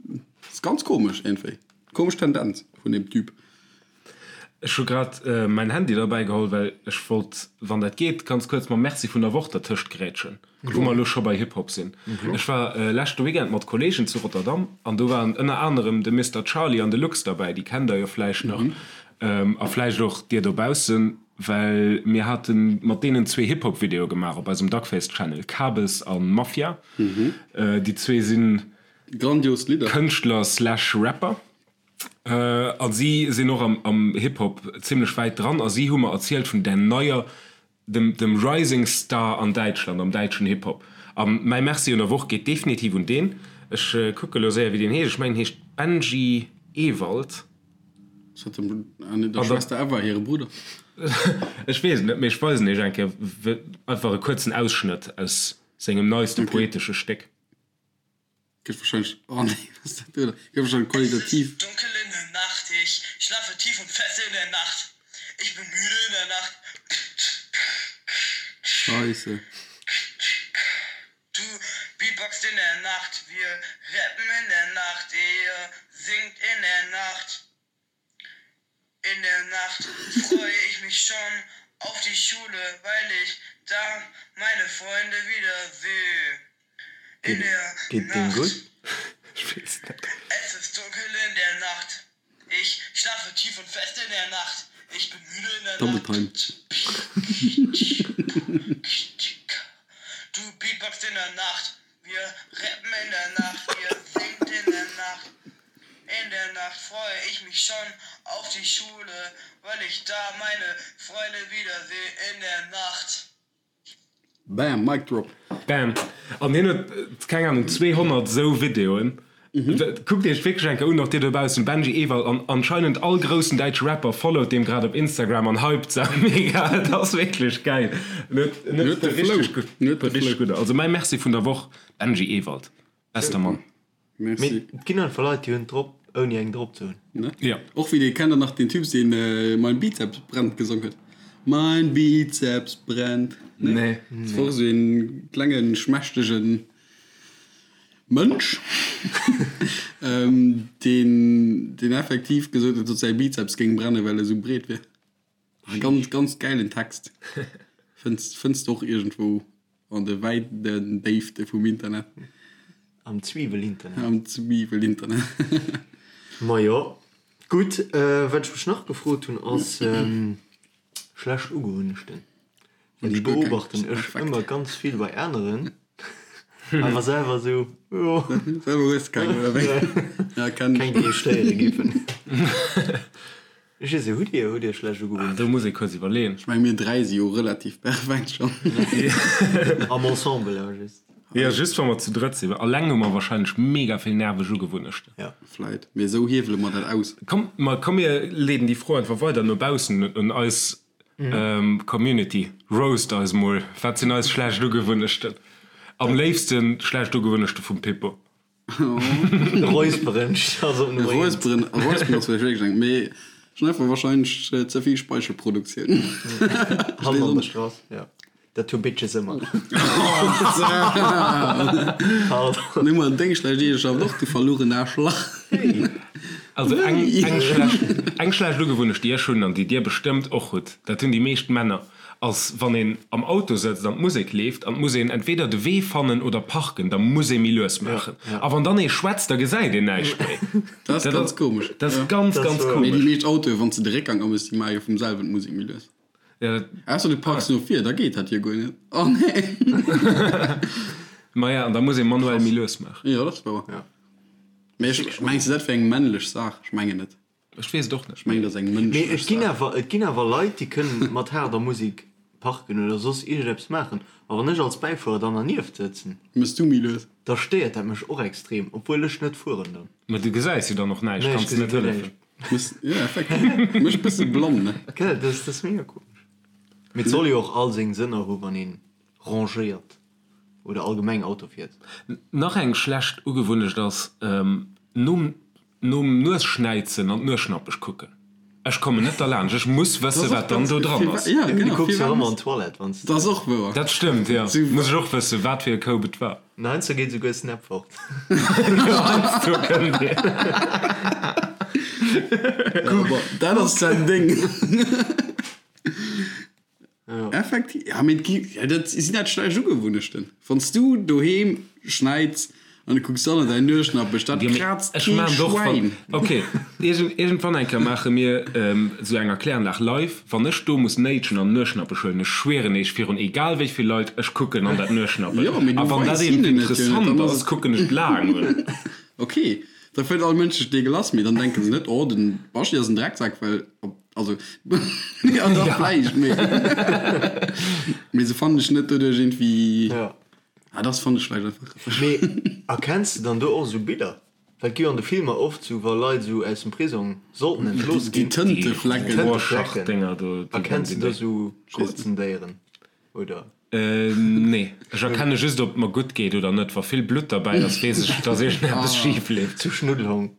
ass ganz komesch iergendwéi. Komesch Tendenz vun deem Typ.
Ech hu grad mäin Handy derbäi geholl, well ech wollt, wann dat geet, ganz kuerz mam Merci vun der Woch dertëscht grätschen, wou mer elo scho bei Hip-Hop sinn. Ech war leschte Weekend mat Kolleegen zu Rotterdam an do waren ënner anerem de Mister Charly an de Lux derbäi, déi kennt der jo vläicht nach a vläicht och dir dobaussen. Well mir hate mat deenen zwee Hip-Hop-Videoe gemaach op eisem Duckface Channel, Kabes a Mafia. Déi zwee si
Grandios Lidder.
Kënschtler slash Rapper a si sinn och am Hip-Hop zimmlech wäit dran a si hu mer erzielt vun där neier, dem dem Rising Star an Däitschland, am däitschen Hip-Hop. A mäi Merci un der Woch geet definitiv un deen. Ech kucke lo séier wéi deen heescht. Ech mengen en heescht Benji Ewald.
Ass dat dem der Schwester Eva hire Brudder?
Ech weess et net, mee ech weisen iech eng Kéier einfach e kuerzen Ausschnëtt aus sengem neiste poetesche Stéck.
Gëtt wahrscheinlech, oh nee, wat ass dat do? Gëtt wahrscheinlech qualitativ.
Es ist dunkel in der Nacht, ich schlafe tief und fest in der Nacht, ich bin müde in der Nacht.
Scheisse.
Du beatboxt in der Nacht, wir rappen in der Nacht, ihr singt in der Nacht. In der Nacht freue ich mich schon auf die Schule, weil ich da meine Freunde wieder sehe. In der
Geet deem
Nacht.
gutt?
Ech weess net.
Es ist dunkel in der Nacht, ich schlafe tief und fest in der Nacht, ich bin müde in der
Double
Nacht.
Time.
Du beatboxt in der Nacht, wir rappen in der Nacht, ihr singt in der Nacht. In der Nacht freue ich mich schon auf die Schule, weil ich da meine Freunde wiedersehe in der Nacht.
Bam, Mic drop.
Bam. An hien huet, keng Ahnung, 200 esou Videoen. Kuckt iech wierklech eng Kéier un, och dir dobaussen, Benji Ewald. An anscheinend all groussen däitsche Rapper followt deem grad op Instagram an hypt se mega. Et ass wierklech gäil. En huet, en huet
de Flow.
richteg gutt,
En huet de
richteg
Flow.
gutt. Also mäi Merci vun der Woch, Benji Ewald. Bester Mann.
Merci.
Mee et ginn einfach Leit, déi hunn et drop, ouni eng drop ze hunn.
Ne?
Ja.
Och wéi dee, kennt der nach deen Typ, deen Mein Bizeps brennt gesong huet? Mein Bizeps brennt.
Ne? Nee.
Dat war och esou een klengen, schmächtegen Mënsch, deen, deen effektiv gesot huet, datt säi Bizeps géing brennen, well e sou breet wier. E ganz, ganz gäilen Text. Fënns, fënns de och iergendwou an de wäiten Déifte vum Internet.
Am Zwiwel-Internet.
Am Zwiwel-Internet.
Majo, gutt. Wat ech mech nach gefrot hunn, ass schlecht Ugewunnechten. Well déi beobachten ech ëmmer ganz vill bei aneren, awer selwer esou, jo.
Selwer hues de keng, oder wéi? Ja, kenn ech.
Keng, déi ech stéiere giffen. Ech weess net, hutt Dir, hutt Dir schlecht Ugewunnechten?
Do muss ee kuerz iwwerleeën.
Ech meng, mir 3 si jo relativ perfekt schonn.
Am Ensemble awer just.
Jo, just wa mer zu drëtt sinn. Alleng hu mer wahrscheinlech mega vill nerveg Ugewunnechten.
Ja.
Vläit. Mee esou hiewele mer dat aus.
Komm, ma komm mir leeden déi Fro einfach weider no baussen un eis Community, roast eis mol, wat sinn eis schlecht Ugewunnechten? Am léifsten schlecht Ugewunnechte vum Pippo.
Räusperen ass op Nummer 1.
Räusperen, räusperen ass vläicht wierklech eng, mee ech hunn einfach wahrscheinlech ze vill Speichelproduktioun.
Hand an der Strass, jo. Dat hu Bitches ëmmer. Pardon.
Nimm mol deng schlecht Eegeschaft och, du verlugen Aarschlach.
Also eng, eng schlecht, eng schlecht Ugewunnecht, déi ech hunn an déi dir bestëmmt och hutt, dat hunn déi meescht Männer, ass wann een am Auto sëtzt an d'Musek leeft an et muss een entweder de Wee fannen oder parken, da muss ee méi lues maachen. A wann dann ee schwätzt, da gesäit een näischt méi.
Dat ass ganz komesch.
Dat ass ganz, ganz
Mee déi
komesch.
meescht Autoe, wann s de de Réckgang améchs, déi maache jo vum selwen d'Musek méi lues.
Ja, dat,
Ausser du parks no vir, da geet dat jo guer net. Oh nee.
Maja, an da muss ee manuell méi lues maachen.
Jo, dat ass wouer.
Ja.
Mee ech, mengs de, dat wär eng männlech Saach? Ech mengen net.
Ech weess et och net.
Ech mengen, dat ass eng
Mee
mënschlech
et ginn
Saach.
awer, et ginn awer Leit, déi kënnen mat haarder Musek parken oder soss iergendeppes maachen. A wann ech als Bäifuerer dann dernieft sëtzen,
Mëss du méi lues?
da stéiert dat mech och extrem, obwuel ech net fueren dann.
Mä du gesäis jo dann och näischt,
Nee, ech
kanns
gesi
net
guer
hëllefen.
näischt.
Mëss, jo, effektiv. Mécht bësse blann, ne?
Gell, dat ass, dat ass mega komesch. Mee et soll jo och all seng Sënner hu wann ee rangéiert oder allgemeng Auto fiert.
Nach eng schlecht Ugewunnecht ass, nom nom Nuesschnäizen an d'Nueschnappech kucken. Ech kommen net derlaanscht, ech muss wëssen, wat dann do dran ass.
Ja,
Du
genau.
kucks jo ëmmer an d'Toilette, wann s de.
Dat ass och wouer.
Dat stëmmt, jo. Muss ech och wëssen, wat fir e Koup et war.
An heiansdo geet esouguer Snap fort.
Jo, heiansdo kënnt een.
Dat ass säin Ding. Effektiv, ja, mee et gi, ja, dat sinn dat schlecht Ugewunnechten. Wann s du doheem schneits an du kucks dann an däin Nueschnappech, dat kraazt
Ech
kee
maan och wann,
Schwäin.
ok, iergend, iergendwann eng Kéier maache mir esou eng Erkläranlag live, wann ech do muss néitschen an Nueschnappech huelen, ech schwieren eech virun egal wéi vill Leit, ech kucken an dat Nueschnappech
Jo, mee du
a wann dat
weis
eent
hinnen et jo net,
interessant
dann ass
ass,
et.
kucken ech laang un.
Ok, da fënnt all Mënsch sech deegelass, mee dann denke se net, oh, den Baschi ass en Drecksak, well op. Also, ja, dach, vläicht, mee, mee se fannen dech net doduerch iergendwéi.
Ja.
Ah, das fand ech vläicht einfach.
Mee erkenns de dann do och esou Biller? Well et gi jo an de Filmer oft esou, wa Leit esou aus dem Prisong sollten entlooss
Déi
ginn.
Tënteflecken.
Déi
Rorschach-Dénger do, déi
Erkenns de do esou Krozendéieren, oder?
Nee, ech erkenne just ob et mer gutt geet oder net. Wa vill Blutt derbäi ass, weess ech, dass iergendeppes schif leeft.
Zu Schnuddelhong.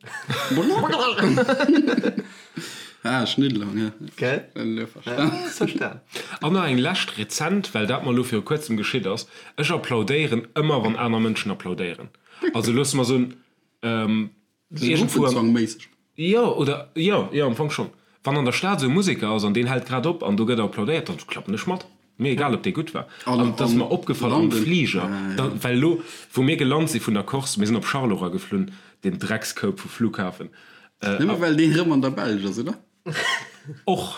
Ah, Schnuddelhong, ja.
Gell?
Elo verstan.
Hues verstan.
An nach eng lescht rezent, well dat mer elo viru kuerzem geschitt ass, Ech applaudéieren ëmmer, wann aner Mënschen applaudéieren. Also loosse mer soen, Iergendwou an.
Gruppenzwangméisseg.
Jo, oder, jo, jo, am Fong schonn. Wann an der Stad esou e Museker ass an deen hält grad op an do gëtt applaudéiert, dann klappen ech mat. Mir egal, ob dee gutt war. An et ass mer opgefall am Fliger, da, well elo, wou mir gelant si vun der Corse, mir sinn op Charleroi geflunn, deen Dreckskoup vu Flughafen.
Nëmme well deen erëm an der Belsch ass, oder?
Och.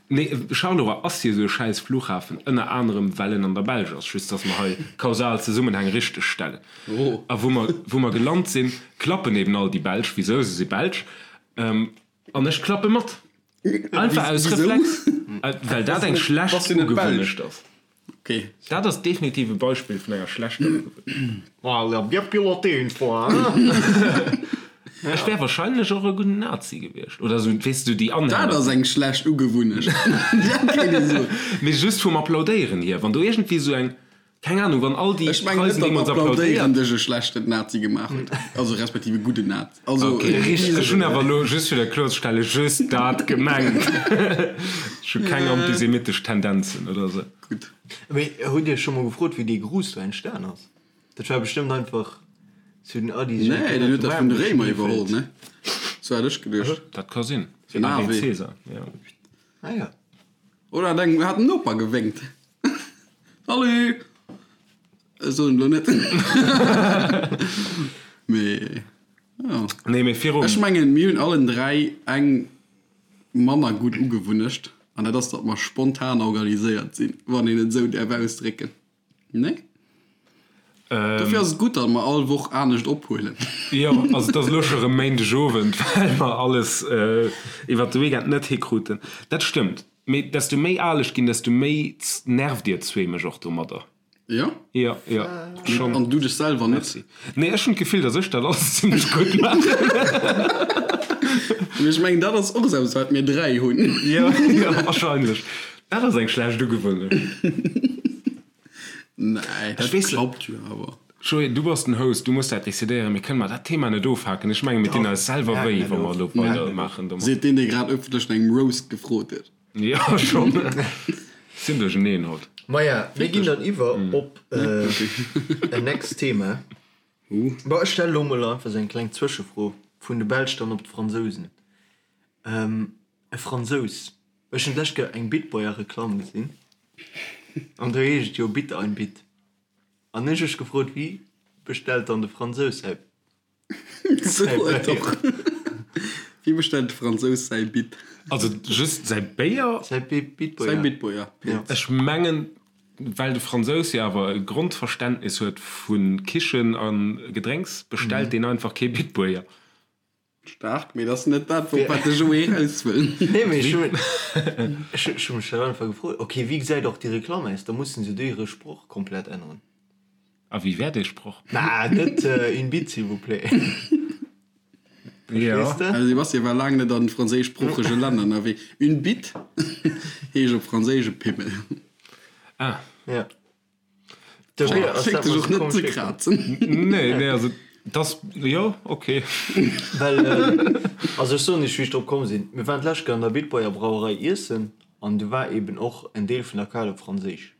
Nee, Charleroi ass jo esou e schäiss Flughafen, ënner anerem well en an der Belsch ass, just dass mer hei kausal Zesummenhäng richteg stellen. A wou mer, wou mer gelant sinn, klappen eben all déi Belsch, wisou, se si Belsch, an ech klappe mat. Einfach aus Reflex, well dat eng schlecht Ugewunnecht ass.
Okay.
Dat ass definitiv e Beispill vun enger schlechter Ugewunnecht.
Ah, il a bien piloté une fois, hein?
Ech wär wahrscheinlech och e gudden Nazi gewiescht. Oder sou, weess du, déi Anhänger.
Dat ass eng schlecht Ugewunnecht. Dat kéint ee soen.
Mee just vum Applaudéieren hier. Wann do iergendwéi sou eng, keng Ahnung, wann all déi
Ech mengen net,
Preisen
datt
deemools
Applaudéieren
applaudéiert.
dech e schlechten Nazi gemaach huet. Also respektiv e gudden Nazi. Also,
Okay, ech hunn awer elo, just fir dat kloerzestellen, just dat gemengt. Ech hu keng antisemitesch Tendenzen oder sou.
Gutt.
Mee hutt Iech scho mol gefrot, wéi dee Gruß do entstan ass? Dat war bestëmmt einfach zu den Addis.
Nee, deen huet dat vun de Réimer iwwerholl, ne? Sou hat ech geduecht.
Dat ka sinn.
Den
Ave
Ave.
Caesar, jo.
Ah ja.
Oder hat eng, hat den Noper gewénkt. Salut! Ech soen elo net. Mee, jo.
Nee, mee virum.
Ech mengen, mir hunn allen 3 eng manner gutt Ugewunnecht, an dat ass, datt mer spontan organiséiert sinn, wann een et esou däerf ausdrécken. Nee? Dofir ass et gutt, datt mer all Woch anescht ophuelen.
Jo, also et ass elo scho rëm Méindegowend, well mer alles iwwert de Weekend net hikruten. Dat stëmmt. Mee desto méi al ech ginn, desto méi nervt dir zwee mech och domadder.
Jo?
Jo, jo,
schonn. An du dech selwer net?
Merci. Nee, ech hunn d'Gefill, datt ech dat alles zimmlech gutt maachen.
Mee ech mengen, dat ass och esou eppes, wat mir 3 hunn.
Jo, jo, wahrscheinlech. Dat ass eng schlecht Ugewunnecht.
Nee, dat klappt jo awer.
Joé, du bass den Host, du muss dat decidéieren. Mir kënnen mar dat Thema net ofhaken. Ech mengen, mir dinn eis selwer wéi, wa mer elo weider maachen domat.
Seet deen, dee grad ëffentlech no engem Roast gefrot huet.
Jo, schonn. Sinn duercheneen haut.
Maja, mir ginn dann iwwer op en next Thema. Bon, ech stelle lo mol einfach esou eng kleng Zwëschefro, vun de Belsch dann op d'Fransousen. E Fransous. Ech hunn d'lescht Kéier eng Bitboyer-Reklamm gesinn an do heescht et jo Bitte ein Bit. An ech ech gefrot, wéi bestellt dann de Fransous säi
Sou
Béier?
Wéi bestellt de Fransous säi Bit?
Also just säi Béier?
Säi Bitboyer.
Säi Bitboyer.
Ech mengen. Well de Fransous jo awer e Grondverständnis huet vu Kichen a Gedrénks, bestellt deen einfach kee Bitburger.
Staark, mee dat ass net dat, op wat de Joé eraus wëll.
Nee, mee ech hu mech dat einfach gefrot. Ok, wéi gesäit och déi Reklamm aus? Da mussen se do hire Sproch komplett änneren.
A wéi wär dee Sproch?
Mä net une bite, s'il vous plaît.
Jo.
Verstees de?
De Sebastien war laang net an franséischsproochege Länner ënnerwee. Une bite heescht op Franséisch e Pimmel.
Ah.
Ja. Dofir ass
Schéngt
dat
sech
mer
och
sou
net
komesch
ze
virkomm.
krazen.
Nee, nee, also dass, jo, ok.
Well, also ech soen iech, wéi ech drop komm sinn. Mir waren d'lescht Kéier an der Bitburger Brauerei iessen an du war eben och en Deel vun der Kaart op Franséisch.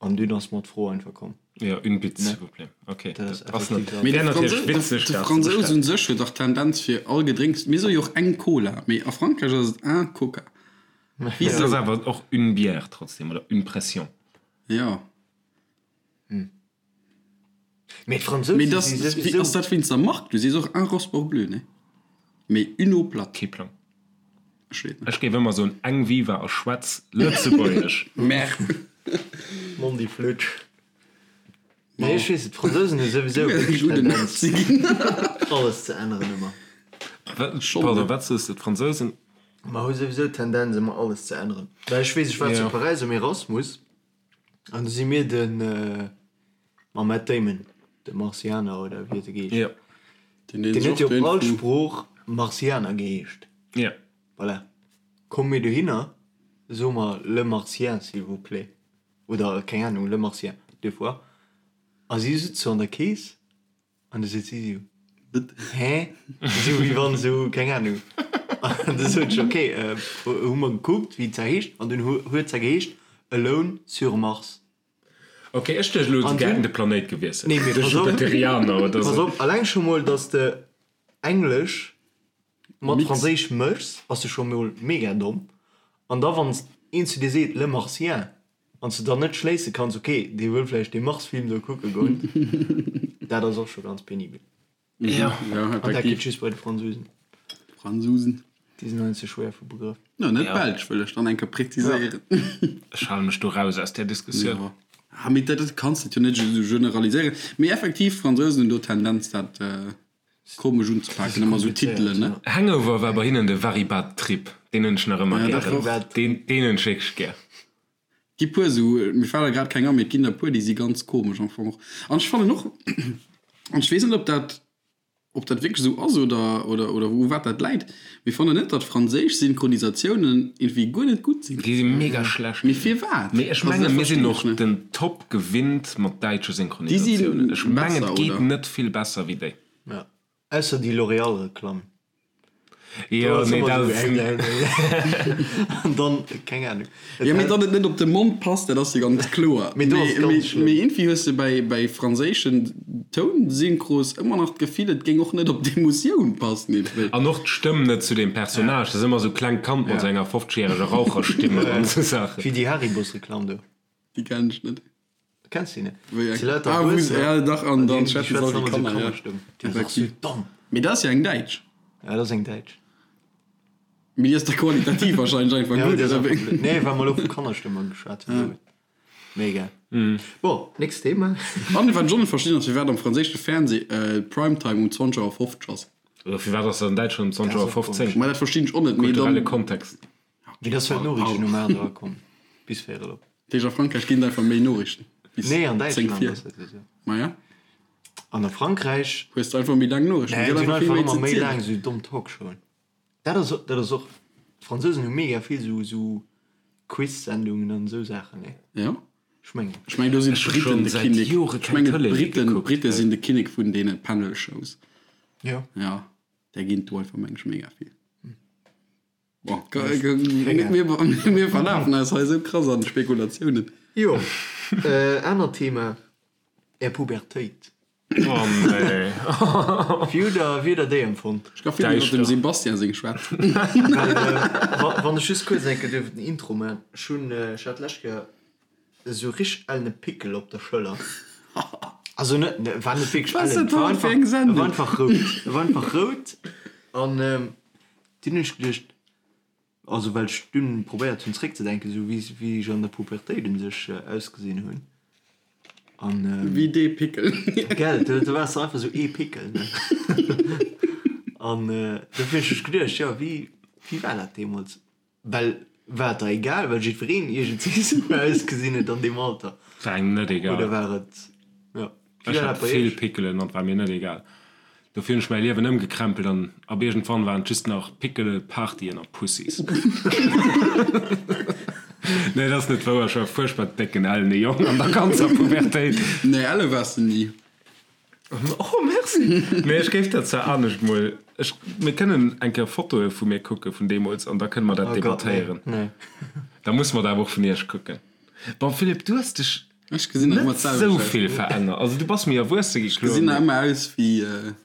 An dunn ass mer d'Fro einfach komm.
Jo, une bite, s'il vous plaît. Ok,
Dat ass
dat ass net,
effektiv dat.
Mee de
wär natierlech
Fransous, de
witzeg,
de
dat ze
Fransous un
bestellen.
sech huet dach d'Tendenz fir all Gedrénks, mir soe jo och eng Cola, mee a Frankräich ass et un Coca.
Et ass
Wisou?
awer och une bière trotzdem, oder une pression.
Jo.
Mee d'Fransousen
Mee dass,
si
wéi
souwisou.
ass dat wéinst der Mark? Du sees och un Rosport bleu, ne? Mee une eau plate.
Kee Plang.
Ech weess net.
Ech géif ëmmer soen eng Viva a schwätz Lëtzebuergesch.
Merde.
Mondi Flutsch. Nee, ech weess et, d'Fransousen hu souwisou
Du wäers e
wierklech
gudden
d'Tendenz,
Nazi ginn.
alles ze änneren ëmmer.
Schonn,
Pardon,
ne?
wat soos de? D'Fransousen?
Mer hu souwisou d'Tendenz ëmmer alles ze änneren. Well ech weess, ech war zu
Jo.
Paräis um Erasmus an du si mir de mam Matt Damon, de Martianer oder wéi huet e geheescht?
Jo.
Deen
Deen huet jo op all Sprooch Martianer geheescht.
Jo.
Voilà. Komme mir dohinner, soe mer Le Martien, s'il vous plaît. Oder keng Ahnung, Le Martien, deux fois. A si sëtzt sou an der Kees an du seet si sou, Hä? Sou wéi wann sou, keng Ahnung. An du sot ech, ok, hu mer gekuckt, wéi d'Sa heescht, an dunn huet d'Sa geheescht Alone sur Mars.
Ok, ech duecht elo,
An
se hätten
dunn,
de Planéit gewiesselt,
nee, mee
de
pass op,
Jupiterianer oder
pass
sou.
op, alleng scho mol, dass de Englesch mat
Mix.
Franséisch méchs, bass de scho mol mega domm. An da wann een zu dir seet Le Martien, Wann s de dann net schléisse kanns, ok, dee wëll vläicht dee Mars-Film do kucke goen, dat ass och scho ganz penibel.
Ja,
An dat
effektiv.
geet just bei de Fransousen.
Fransousen.
Déi sinn heiansdo schwéier vu Begrëff.
No, net Belsch, wëll ech dann eng Kéier präziséieren.
Ech hale mech do raus aus där Diskussioun.
Jo. Ah, mee dat kanns de jo net esou generaliséieren. Mee effektiv, d'Fransousen hunn do d'Tendenz, dat komesch unzepaken, ëmmer esou Titelen, ne?
Hangover war bei hinnen de Very Bad Trip. Deen hunn ech nach ëmmer
Ja, dat
gären.
och.
Deen, deen hunn ech wierklech gär.
Gi puer esou, mir fale grad keng an, mee et ginn der puer, déi si ganz komesch am Fong och. An ech fannen och, an ech weess net, ob dat, ob dat wierklech esou ass oder, oder, oder u wat dat läit, mee fannen net, datt franséisch Synchronisatiounen iergendwéi guer net gutt sinn.
Déi si mega schlecht.
Mee firwat?
Mee ech
Also dat
mengen, mir
verstinn
sinn
ech
och
net.
den Top gewinnt mat däitsche
Déi si
Synchronisatiounen. Ech mengen,
besser,
et geet
oder?
net vill besser wéi déi.
Ja. Ausser déi L'Oréal-Reklamm.
Jo, nee, dat ass.
An dann, keng Ahnung.
Jo, mee datt et net op de Mond passt, dat ass jo ganz kloer.
Mee do ass et ganz schlëmm.
Mee iergendwéi hues de bäi, bäi franséischen Tounsyncros ëmmer nach d'Gefill, et géing och net op d'Emotioun passen iergendwéi.
An och d'Stëmm net zu deem Personnage. Dat ass ëmmer esou klengt Kand mat esou enger 50-järeger Raucherstimme an esou Saachen.
Wéi déi Haribos-Reklamm do.
Déi kennen ech net.
Kenns du déi net?
Wéi eng?
Si lauter
Ah, wou se,
Erwuessener,
ja, dach, an
an
dann
déi
schwätzen se
schwätzen
all wéi
ëmmer sou
Kanner, ja.
Kannerstëmm. Déi ass och sou
Effektiv.
domm.
Mee dat ass jo eng däitsch.
Ja, dat ass eng däitsch.
Mee déi ass da qualitativ wahrscheinlech einfach
Ja,
gutt,
déi ass
oder
einfach
wéi?
blöd. Nee, well mer elo vu Kannerstëmmer geschwat hunn. Mee egal. Bon, nächst Thema.
An wat ech och net verstinn ass, firwat am franséische Fernseh Primetime um 20 Auer 50 ass.
Oder firwat ass dat an Däitschland um 20 Auer 15?
Ma dat verstinn ech och net. Mee
Kulturelle
dann,
Kontext.
Mee dat ass well d'Noriichten um 8 Auer kommen. Bis véierel op.
Dat heescht a Frankräich ginn et einfach méi Noriichten bis
Nee, an
10
Däitschland
vir.
ass dat esou.
Maja,
An a Frankräich.
hues de einfach méi laang Noriichten.
Nee,
Gëtt
si hunn
einfach vill
einfach
méi
ëmmer
ze
méi
zielen.
laang esou domm Talkshowen. Dat ass, dat ass och, d'Fransousen hu mega vill esou, esou Quiz-Sendungen an esou Saachen, nee?
Ja.
Ech mengen.
Ech mengen do sinn
Ech hu
d'Briten
schonn
de
säit
Kinnek.
Jore
Ech
keng
mengen
Tëlee méi
d'Briten,
gekuckt.
d'Brite sinn de Kinnek vun deene Panel-Shows.
Jo.
Ja, där ginn et do einfach, meng ech, mega vill. Bon, mir verlafen eis hei esou krass an Spekulatiounen.
Jo, anert Thema, Är Pubertéit.
Oh nee.
Wéi hutt der, wéi hutt der déi empfonnt?
Ech ka vill iwwer dem Sebastian seng schwätzen.
Well, wann ech just kuerz eng Kéier duerf den Intro maachen, ech hunn, ech hat d'lescht Kéier esou richteg ellene Pickel op der Schëller. Also net, war net wierklech ellen, war einfach, war einfach rout, war einfach rout an dunn hunn ech geduecht. Also well ech dunn probéiert hunn zréckzedenken, esou wéi wéi ech an der Pubertéit un sech ausgesinn hunn. An
Wéi dee Pickel.
Gell, do do waars de einfach esou ee Pickel, ne? An dofir hunn ech mech geduecht, jo wéi wéi war dat deemools? Well war et der egal, well jiddwereen iergendwéi esou ausgesinn huet an deem Alter?
War engem net egal.
Oder war et, jo,
wéi war dat bei iech? Ech hat vill Pickelen an et war mir net egal. Dofir hunn ech mäi Liewen ëmgekrempelt an ab iergendwann waren et just nach Pickele, Partyen a Pussys. Nee, dat ass net wouer, ech war e fuerchtbar décken, ellene Jong an der ganzer Pubertéit.
Nee, elle waars de ni.
Oh, merci! Mee ech géif dat zwar anescht mol, ech, mir kënnen eng Kéier Fotoe vu mir kucke vun deemools an da kënne mer dat
Oh Gott, nee,
debattéieren.
nee.
Da musse mer dat awer och vun iech kucken. Bon, Philippe, du hues dech
Ech gesinn nach ëmmer
Net sou
d'selwecht aus.
vill verännert. Also du bass méi erwuesse gi,
Ech
kloer,
gesinn nach
mee.
ëmmer aus wéi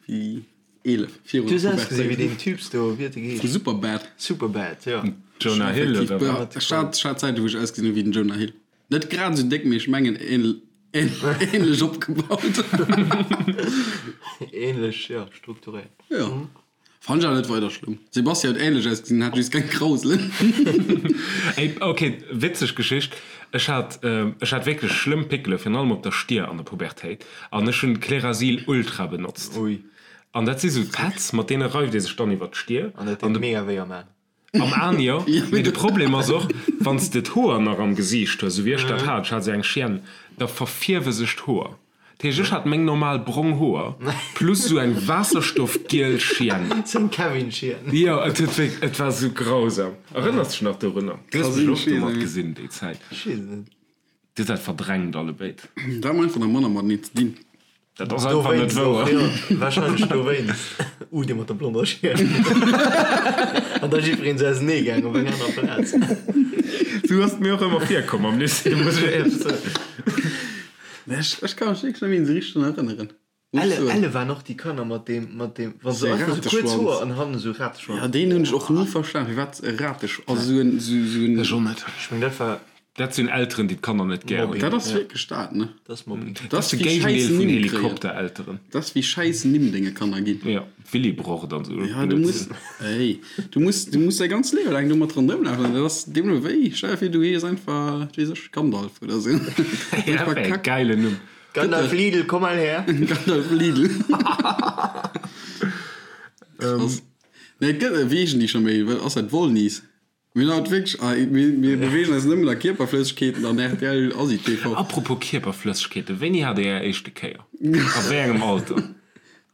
wéi 11 virun
Du
der
hues ausgesinn wéi
Pubertéit.
deen Typs do, wéi huet e
Vu
geheescht?
Superbad.
Superbad, jo.
Jonah Hill
Effektiv,
oder wat?
ech hat ech hat Zäiten, wou ech ausgesinn hu wéi den Jonah Hill. Net grad esou déck, mee ech mengen ähnlech opgebaut.
Ähnlech, jo, strukturéiert.
Jo. Fannt ech awer net weider schlëmm. Sebastian huet ähnlech ausgesinn, hat just keng Krauselen.
Ey, ok, witzeg Geschicht. Ech hat, ech hat wierklech schlëmm Pickele, virun allem op der Stier an der Pubertéit. An ech hunn Clearasil Ultra benotzt.
Ui.
An dat si sou Pads, mat deene reift ee sech dann iwwer d'Stier.
An dat deet mega wéi am Aen.
Am Aan jo, mee de Problem ass och, wann s de d'Hoer nach am Gesiicht hues, esou wéi ech dat hat, ech hat esou eng Chienne, da verfierwe sech d'Hoer. Dat heescht, ech hat meng normal brong Hoer plus esou eng waasserstoffgiel Chienne.
Sou eng Kevin-Chienne.
Jo, et huet wierk, et war esou grausam. Erënners dech nach dorunner? Du hues mech och domat gesinn déi Zäit.
Ech weess et net.
Dir hutt dat verdrängt allebéid.
Dat hu mer einfach nach manner mateneen ze dinn.
Dat ass einfach net
Dowéinst och,
wouer.
jo. Wahrscheinlech dowéinst. Uh, dee mat der blonder Schier. An da jiddwereen sou ausenee gaang op eng aner Plaz.
Sou ass et mir och ëmmer virkomm am Lycée, muss ech éierlech soen.
Nee, ech, ech ka mech wierklech net méi esou richteg drun erënneren. Muss
Elle,
soen.
elle waren och déi Kanner mat deem, mat deem, wa se
Dee
einfach sou kuerz
Rateschwanz.
Hoer an hannen esou Rateschwanz.
Ja, deen hunn ech och ni verstan, firwat e Rateschwanz, also sou en, sou, sou en.
Ech och net.
Ech meng, dat war.
Dat sinn Elteren, déi d'Kanner net gär hunn.
Dat ass wierklech dat, ne?
Dat ass Mobbing.
Dat ass
de
wéi
Géigendeel
schäiss
vun
Nimm kréien.
Helikopterelteren.
Dat ass wéi schäiss Nimm denge Kanner ginn.
Jo, Willibrord an esou.
Ja, du muss, ey, du muss, du muss däi ganzt Liewe laang domat ronderëm lafen. Dat ass deemno wéi, stell dir vir, du hees einfach, wat weess ech, Gandalf oder esou.
Ja, dat wär e geilen Numm.
Gandalf Lidl, komm mal her!
Gandalf Lidl. Krass. Nee, et gëtt, wéi heeschen déi scho méi? Wat ass dat, Wollnies? Mir hunn haut wierklech, ah, mir, mir beweegen eis nëmmen a Kierperflëssegkeeten an rtl Asi TV.
Apropos Kierperflëssegkeeten, wéini hat Dir Är éischte Kéier? A wéi engem Alter?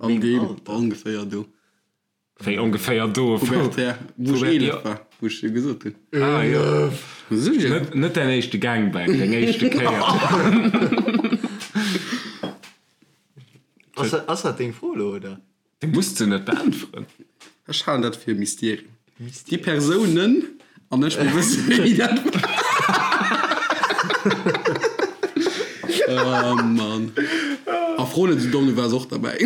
An deem ongeféier do.
Wéi ongeféier do?
Pubertär, wou ech 11 war, wou ech jo gesot hunn.
Ah jo.
Sécher.
Net, net däin éischte Gangbang, deng éischte Kéier.
Ass dat, ass dat deng Fro elo, oder?
Du muss se net beäntweren.
Ech halen dat fir e Mysterium. Déi Persounen an ech, mir wëssen, wéini dat war. Oh Mann. A fro net esou domm, du waars och derbäi.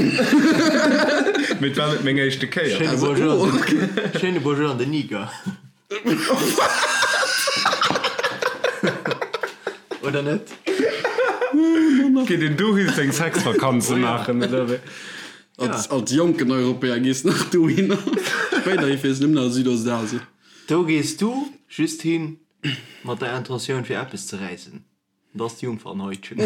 Mee et war net meng éischte Kéier.
Schéine Bonjour an den, schéine Bonjour an den Niger. Oder net?
Geet een dohi seng Sexvakanze maachen, oder wéi?
Als, als jonken Europäer gees nach dohinner. Spéiderhi fiers nëmmen a Südostasien.
Do gees du just hin mat der Intentioun fir eppes ze räissen. Dat ass d'Jungfernhäutchen.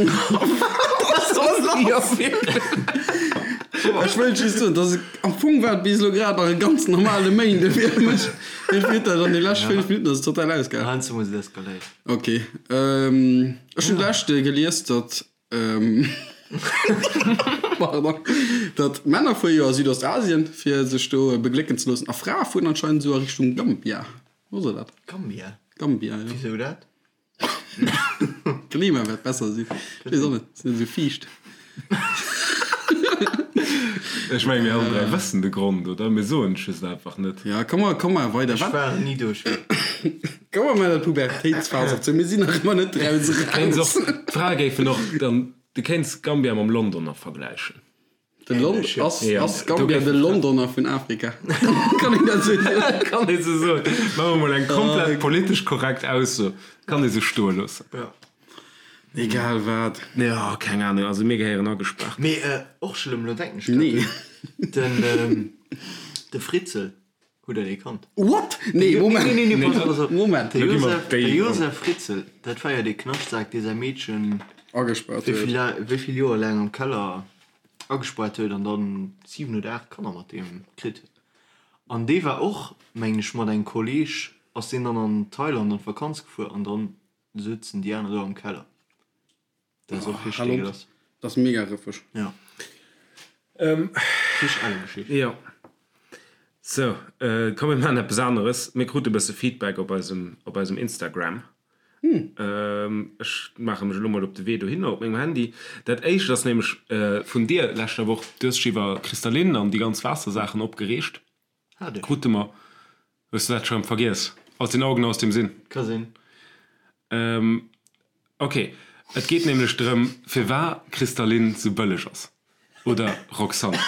Ech wëllt just soen, dass am Fong war et bis elo grad nach e ganz normale Méinde fir mech. Mee fir dat an de lescht 5 Minutten ass et total ausgeaart.
Heiansdo muss et eskaléieren.
Ok. Ech hunn d'lescht gelies, datt Pardon. Datt Männer fuere jo a Südostasien, fir sech do beglécken ze loossen, a Frae fueren anscheinend esou a Richtung Gambia. Wosst der dat?
Gambia?
Gambia, jo.
Wisou dat?
D'Klima wäert besser sinn. Ech weess och net, ass net esou fiicht.
Ech menge mir all 3 wëssen de Grond, oder? Mir soen et just einfach net.
Ja, komm mer, komm mer weider.
Ech war ni do, ech weess.
Komm mer maachen dat Pubertéitsphas op zou. Mir sinn nach ëmmer net draus
Kéints
eraus.
och, d'Frae géifen och dann, du kéints Gambia mam Londoner vergläichen.
De Lon ass,
Ja,
ass
do
Gambia
géif
de
ech
Londoner vun Afrika? Kann een dat esou soen?
Kann ee sou soen. Maache mer mol eng komplett politesch korrekt Ausso. Kann ee sou stoe loossen.
Ja.
Egal wat.
Jo, keng Ahnung, also mir gehéieren agespaart.
Mee och schlëmm, lo denken ech grad
Nee.
drun, den, de Fritzel. Hutt der dee kannt?
What? Nee, Moment.
Nee, nee, nee, pass op, pass op.
Moment.
De
Lo gi mer
Josef, de
déi.
Josef Fritzl, dat war jo dee Knaschtsak, dee säi Meedchen
Agespaart
wéi
huet.
vill, wéi vill Joer laang am Keller agespaart huet an dann 7 oder 8 Kanner mat deem kritt huet. An dee war och, mengen ech, mat engem Kolleg ass deen dann an Thailand an d'Vakanz gefuer an dann souzen déi aner do am Keller. Dat ass och richteg dégueulasse.
Dat ass mega rëffeg.
Ja. Richteg elle Geschicht.
Jo. Sou, komm mir maachen eppes aneres. Mir krute e bësse Feedback op eisem, op eisem Instagram. Ech maache mech elo mol op de Wee dohinner op mengem Handy. Dat éischt ass nämlech vun dir leschter Woch. Du hues dech iwwer Kristallin an déi ganz Waassersaachen opgereegt.
Hat ech.
Krute mer. Hues du dat scho rëm vergiess? Aus den Augen, aus dem Sinn.
Ka sinn.
Ok, et geet nämlech drëm, firwar Kristallin sou bëlleg ass. Oder Roxanne?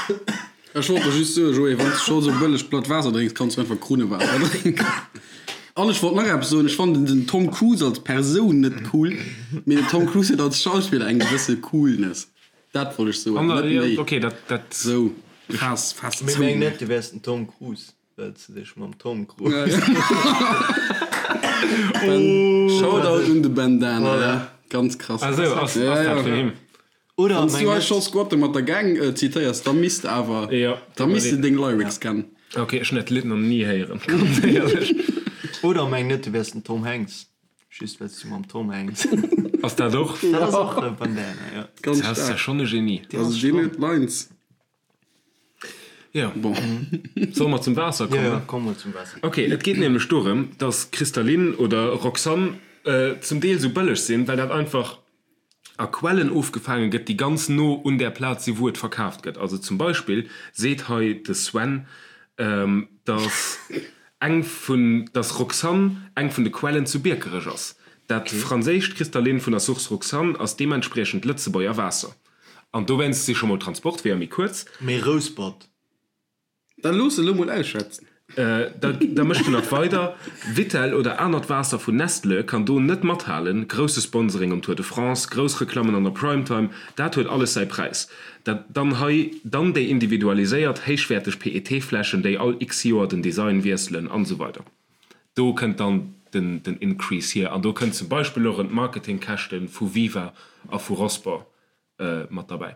Ech wollt der just soen, Joé, wann s de scho sou bëlleg platt Waasser drénks, kanns du einfach Krunnewaasser drénken. An ech wollt nach eppes soen, ech fannen den Tom Cruise als Persoun net cool, mee den Tom Cruise huet als Schauspiller eng gewësse Coolness. Dat wollt ech soen, net méi.
Ok, dat, dat.
Sou, faass, faass
Mee
zou.
meng net, du wäers den Tom Cruise. Well s de dech mam Tom Cruise.
Shoutout un de Bandana, ja. Ganz krass.
Ah sou, ass, ass dat vun him?
Oder
Wann s du
meng
hei scho Squatte mat der Gang zitéiers, da misst awer,
Ja,
da misst de deng Lyrics kennen.
Ok, ech hunn dat Lidd nach ni héieren, ganz éierlech.
Oder meng net, du wäers den Tom Hanks. Just well s du mam Tom Hanks.
Ass dat och?
Dat ass och e Bandana, jo.
Ganz
Dat ass ja
staark.
schonn e Genie.
Also deen huet Lines.
Jo.
Bon.
Solle mer zum Waasser kommen?
Jo, jo, komm mol zum Waasser.
Ok, et geet nämlech dorëm, dass Kristallin oder Roxanne zum Deel sou bëlleg sinn, well dat einfach a Quellen ofgefaange gëtt, déi ganz no un där Plaz si wou et verkaaft gëtt. Also zum Beispill seet hei de Sven, dass eng vun, dass Roxanne eng vun de Quellen zu Biekerech ass. Dat franséischt Kristallin vun der Source Roxanne ass deementspriechend Lëtzebuerger Waasser. An dowéinst si scho mol d'Transportweeër méi kuerz.
Mee Rouspert.
Da looss elo mol ausschwätzen.
Da da mécht en nach weider, Vittel oder anert Waasser vun Nestle kann do net mathalen, grousse Sponsoring um Tour de France, grouss Reklammen an der Primetime, dat huet alles säi Präis. Dat dann hei dann déi individualiséiert héichwäerteg PET-Fläschen, déi all x Joer den Design wiesselen an esou weider. Do kënnt dann den den Increase hier an do kënnt zum Beispill och erëm d'Marketingkäschte vu Viva a vu Rosport mat derbäi.